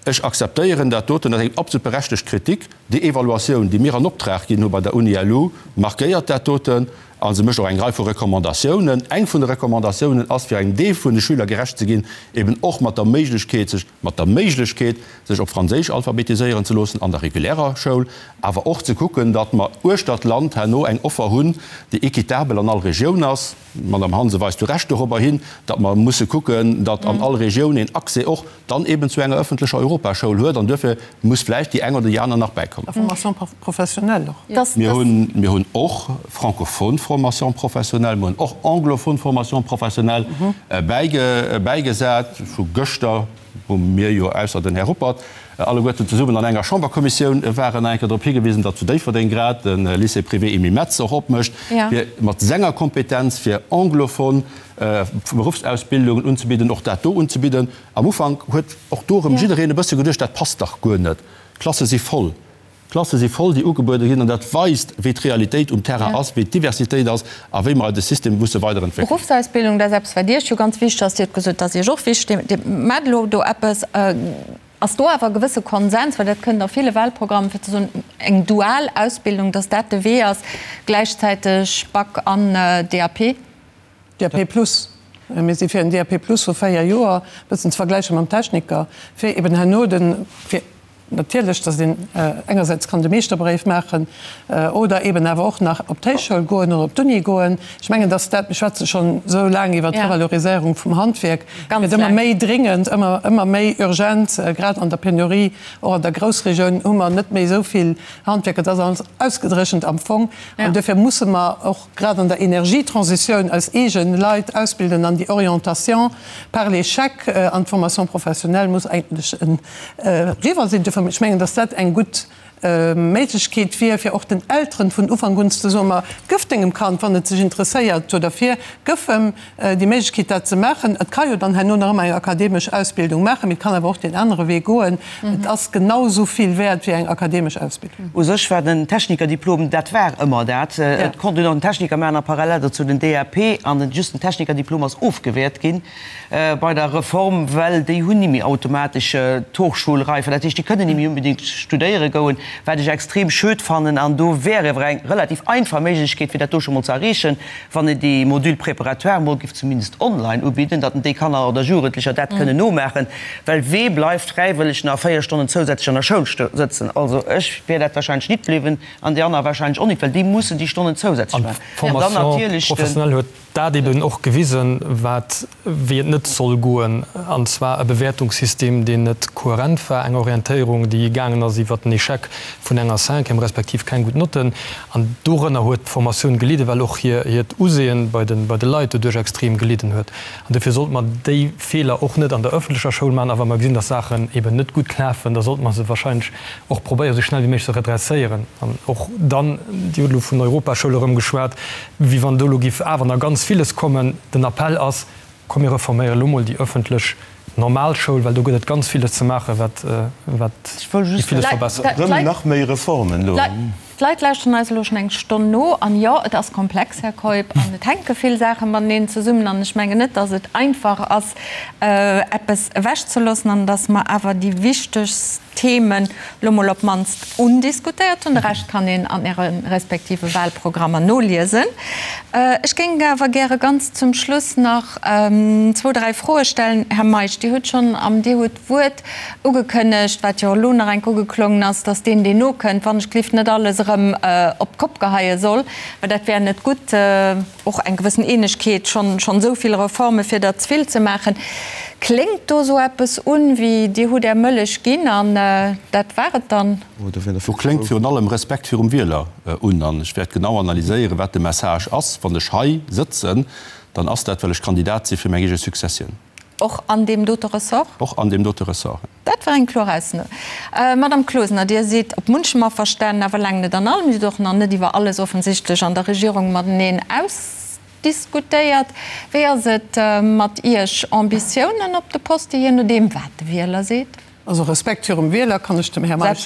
Ech akzeptéieren dat doten, dat ass eng absolut berechtegt Kritik. Déi Evaluatioun, déi mir an Optrag ginn hu bei der Uni-LU, markéiert dat doten a se mécht och eng Rei vu Recommandatiounen. Eng vun de Recommandatiounen ass, fir engem Deel vun de Schüler gerecht ze ginn, eben och mat der Méiglechkeet, sech mat der Méiglechkeet, sech op Franséisch alphabetiséieren ze loossen an der regulärer Schoul, awer och ze kucken, datt mer uechter d'Land herno eng Offer hunn, déi équitabel an all Regioun ass. D'Madame Hansen weist zu Recht dorobber hin, datt mer musse kucken, datt an all Regioun een Accès och dann eben zu enger öffentlecher Europaschoul huet. An duerfir muss vläicht déi eng oder déi aner nach bäikommen. A Formation professionnelle och. Mir hunn, mir hunn och francophone Formation professionnelle, mir hunn och anglophone Formation professionnelle bäige, bäigesat. Vu gëschter wou mir jo, ausser den Här Ruppert, alleguerten zesummen an enger Chamberkommissioun waren, nach eng Kéier drop higewisen, datt zu Déifferdeng grad de Lycée privé Emile Metz och opmécht, fir mat senger Kompetenz fir anglophon Beruffsausbildungen unzebidden, och dat do unzebidden. Am Ufank huet och do erëm jiddereen e bësse geduecht, dat passt dach guer net, d'Klasse si voll. D'Klasse si voll, déi ugebuede ginn, an dat weist, wéi d'Realitéit um Terrain ass, wéi d'Diversitéit ass a wéi mer eise System musse weiderentwéckelen. Beruffsausbildung, dat ass eppes, wat Iech jo ganz wichteg ass. Dir hutt gesot, dat ass Iech och wichteg. Dir maacht elo do eppes. Ass do awer e gewësse Konsens, well dat kënnt a ville Wahlprogrammen, fir ze soen, eng dual Ausbildung, datt dat de Wee ass, gläichzäiteg Bac an DAP? DAP plus. Mir si fir en DAP plus vu 4 Joer, e bëssen ze vergläiche mam Techniker, fir eben herno de, fir natierlech, datt een engersäits kann de Meeschterbréif maachen oder eben awer och nach op d'Héichschoul goen oder op d'Uni goen. Ech mengen, datt dat, mir schwätze schonn esou laang iwwert d'Revaloriséierung vum Handwierk, gëtt ëmmer méi dringend, ëmmer, ëmmer méi urgent, grad an der Penurie, och an der Groussregioun hu mer net méi esou vill Handwierker. Dat ass alles ausgedréchent am Fong an duerfir musse mer och, grad an der Energietransitioun eis eegen Leit ausbilden an déi Orientation par l'échec an d'Formation professionnelle muss eigentlech eriwwer sinn. Duerfir, ech mengen, dass dat eng gutt Méiglechkeet wier, fir och den Elteren vun Ufank un ze soen, ma gëff dengem Kand, wann et sech interesséiert do derfir, gëff em déi Méiglechkeet dat ze maachen. Et ka jo dann herno nach ëmmer eng akademesch Ausbildung maachen, mee et kann awer och deen anere Wee goen. Et ass genau esou vill wäert wéi eng akademesch Ausbildung. U sech war den Technikerdiplom, dat war ëmmer dat. Et konnt een och den Techniker maachen a parallel dozou den DAP. An den just den Technikerdiplom ass ofgewäert gi bei der Reform, well déi hunn ni méi automatesch d'Hochschulreife. Dat heescht, déi kënnen ni méi unbedéngt studéiere goen. Wat ech extrem schued fannen, an do wär ewer eng relativ einfach Méiglechkeet, fir dat do scho mol ze erreechen, wann een déi Module préparatoire mol géif zumindest online ubidden, datt déi Kanner oder Jugendlecher dat kënnen nomaachen, well wee bleift fräiwëlleg nach 4 Stonnen zousätzlech an der Schoul sëtzen? Also ech wär dat wahrscheinlech nit bliwwen an déi aner wahrscheinlech och nit, well déi mussen déi Stonnen zousätzlech maachen. An dann D'Formation natierlech den. professionnelle huet dat eben och gewisen, wat, wéi et net soll goen, an zwar e Bewäertungssystem, deen net kohärent war, eng Orientéierung, déi gaangen ass iwwert den Échec vun enger Cinquième respektiv keng gutt Notten. An dorënner huet d'Formatioun gelidden, well och hiert Usehen bei de, bei de Leit doduerch extrem gelidden huet. An dofir sollte mer déi Feeler och net an der öffentlecher Schoul maachen. A wa mer gesinn, dass Saachen eben net gutt lafen, da sollte mer se wahrscheinlech och probéieren, esou schnell wéi méiglech ze redresséieren. An och dann, Dir hutt elo vun Europaschoul erëm geschwat, wéi wann do elo giff awer nach ganz villes kommen. Den Appell ass, Komm mir reforméiere lo mol déi öffentlech normal Schoul, well do gëtt et ganz villes ze maachen, wat wat déi villes verbessert. Rëm nach méi Reformen elo. D'Leit lauschteren eis elo schonn eng Stonn no. An jo, et ass komplex, Här Keup, an et hänke vill Saache mateneen zesummen. An ech mengen net, datt et einfach ass, eppes ewechzeloossen, an datt mer awer déi wichtegst Themen lo mol op d'mannst undiskutéiert hunn. De Rescht kann een an Äre respektive Wahlprogrammer noliesen. Ech géing awer gäre ganz zum Schluss nach zwou, dräi Froe stellen. Här Meisch, Dir hutt schonn am Dir hutt d'Wuert ugekënnegt, wat jo elo nach enk ugeklongen ass, dass deen, deen nokënnt, wann ech glift net alles erëm op d'Kopp geheie soll, well dat wär net gutt. Och eng gewëssen Eenegkeet, schonn schonn esou vill Reforme fir der ze vill ze maachen. Kléngt do esou eppes un wéi, Dir hutt Är Mëllech ginn an dat war et dann? Do kléngt virun allem Respekt virum Wieler un. An ech wäert genau analyséieren, wat de Message ass. Wann ech hei sëtzen, dann ass dat, well ech Kandidat si fir meng eege Successioun. Och an deem dote Ressort? Och an deem dote Ressort. Dat war eng kloer Ausso. Madame Closener, Dir sidd op munchem averstanen, awer laang net an allem. Dir hutt och nach net iwwer alles offensichtlech an der Regierung mateneen ausdiskutéiert. Wéi ass et mat Iech? Ambitiounen op de Poste, jee nodeem wat de Wieler seet? Also Respekt virum Wieler kann ech dem Här Meisch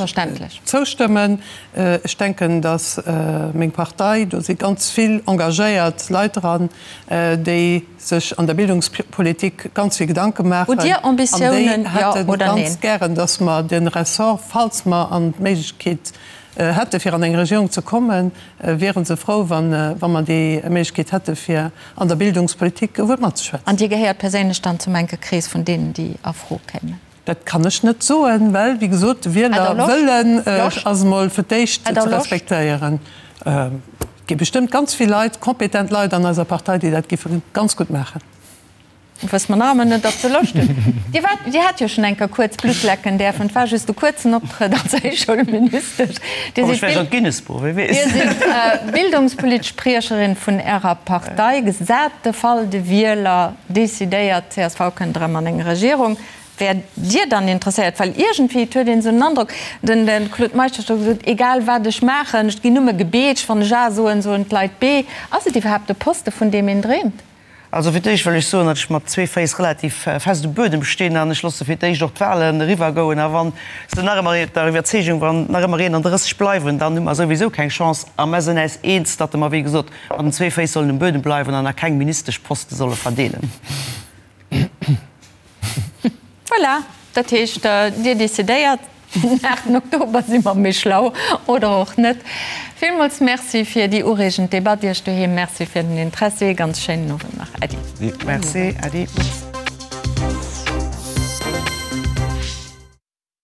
zoustëmmen. Ech denken, datt meng Partei, do si ganz vill engagéiert Leit dran, déi sech an der Bildungspolitik ganz vill Gedanke maachen. Hutt Dir Ambitiounen, jo oder neen? An déi hätte ganz gären, datt mer de Ressort, falls mer an d'Méiglechkeet hätte fir an eng Regierung ze kommen, wiere se frou, wa mer déi Méiglechkeet hätte fir an der Bildungspolitik e Wuert matzeschwätzen. An Dir gehéiert perséinlech dann zum enke Krees vun deenen, déi a Fro kéimen? Dat kann ech net soen, well, wéi gesot, de Wielerwëllen ass emol fir d'éischt ze respektéieren. Et gi bestëmmt ganz vill Leit, kompetent Leit an eiser Partei, déi dat géife ganz gutt maachen. Wësse mer nach ëmmer net, ob se Loscht hunn. Dir waart, Dir hat jo schonn eng Kéier kuerz Blutt lecken däerfen. Et war just e kuerzen Optrëtt als Héichschoulministesch. Dir sidd Dir sidd bildungspolitesch Spriecherin vun Ärer Partei. Gesat de Fall, de Wieler decidéiert, csv kënnt erëm an eng Regierung. Wäert Dir dann interesséiert? Well iergendwéi, et huet een esou den Androck, den Claude Meisch huet scho gesot, egal wat ech maachen, ech ginn nëmme gebeetscht, wann ech A soen, soen d'Leit B. Ass et iwwerhaapt e Poste vun deem een dreemt? Also fir d'éischt wëll ech soen, datt ech mat zwee Féiss relativ fest um Buedem stinn an ech loosse fir d'éischt och d'Wahlen eriwwergoen. A wa se nach ëmmer der Iwwerzeegung, wann nach ëmmer 31 bleiwen, dann hu mer souwisou keng Chance. A mer sinn äis eens, datt mer, wéi gesot, mat den zwee Féiss sollen um Buedem bleiwen an a keng Ministeschposte solle verdeelen. Voilà, dat heescht, Dir decidéiert. Den 8 Oktober si mer méi schlau, oder och net. Villmools Merci fir déi ureegend Debatt. Iech doheem Merci fir den Interessi. Ganz schéinen Owend nach. Äddi. Merci, Äddi.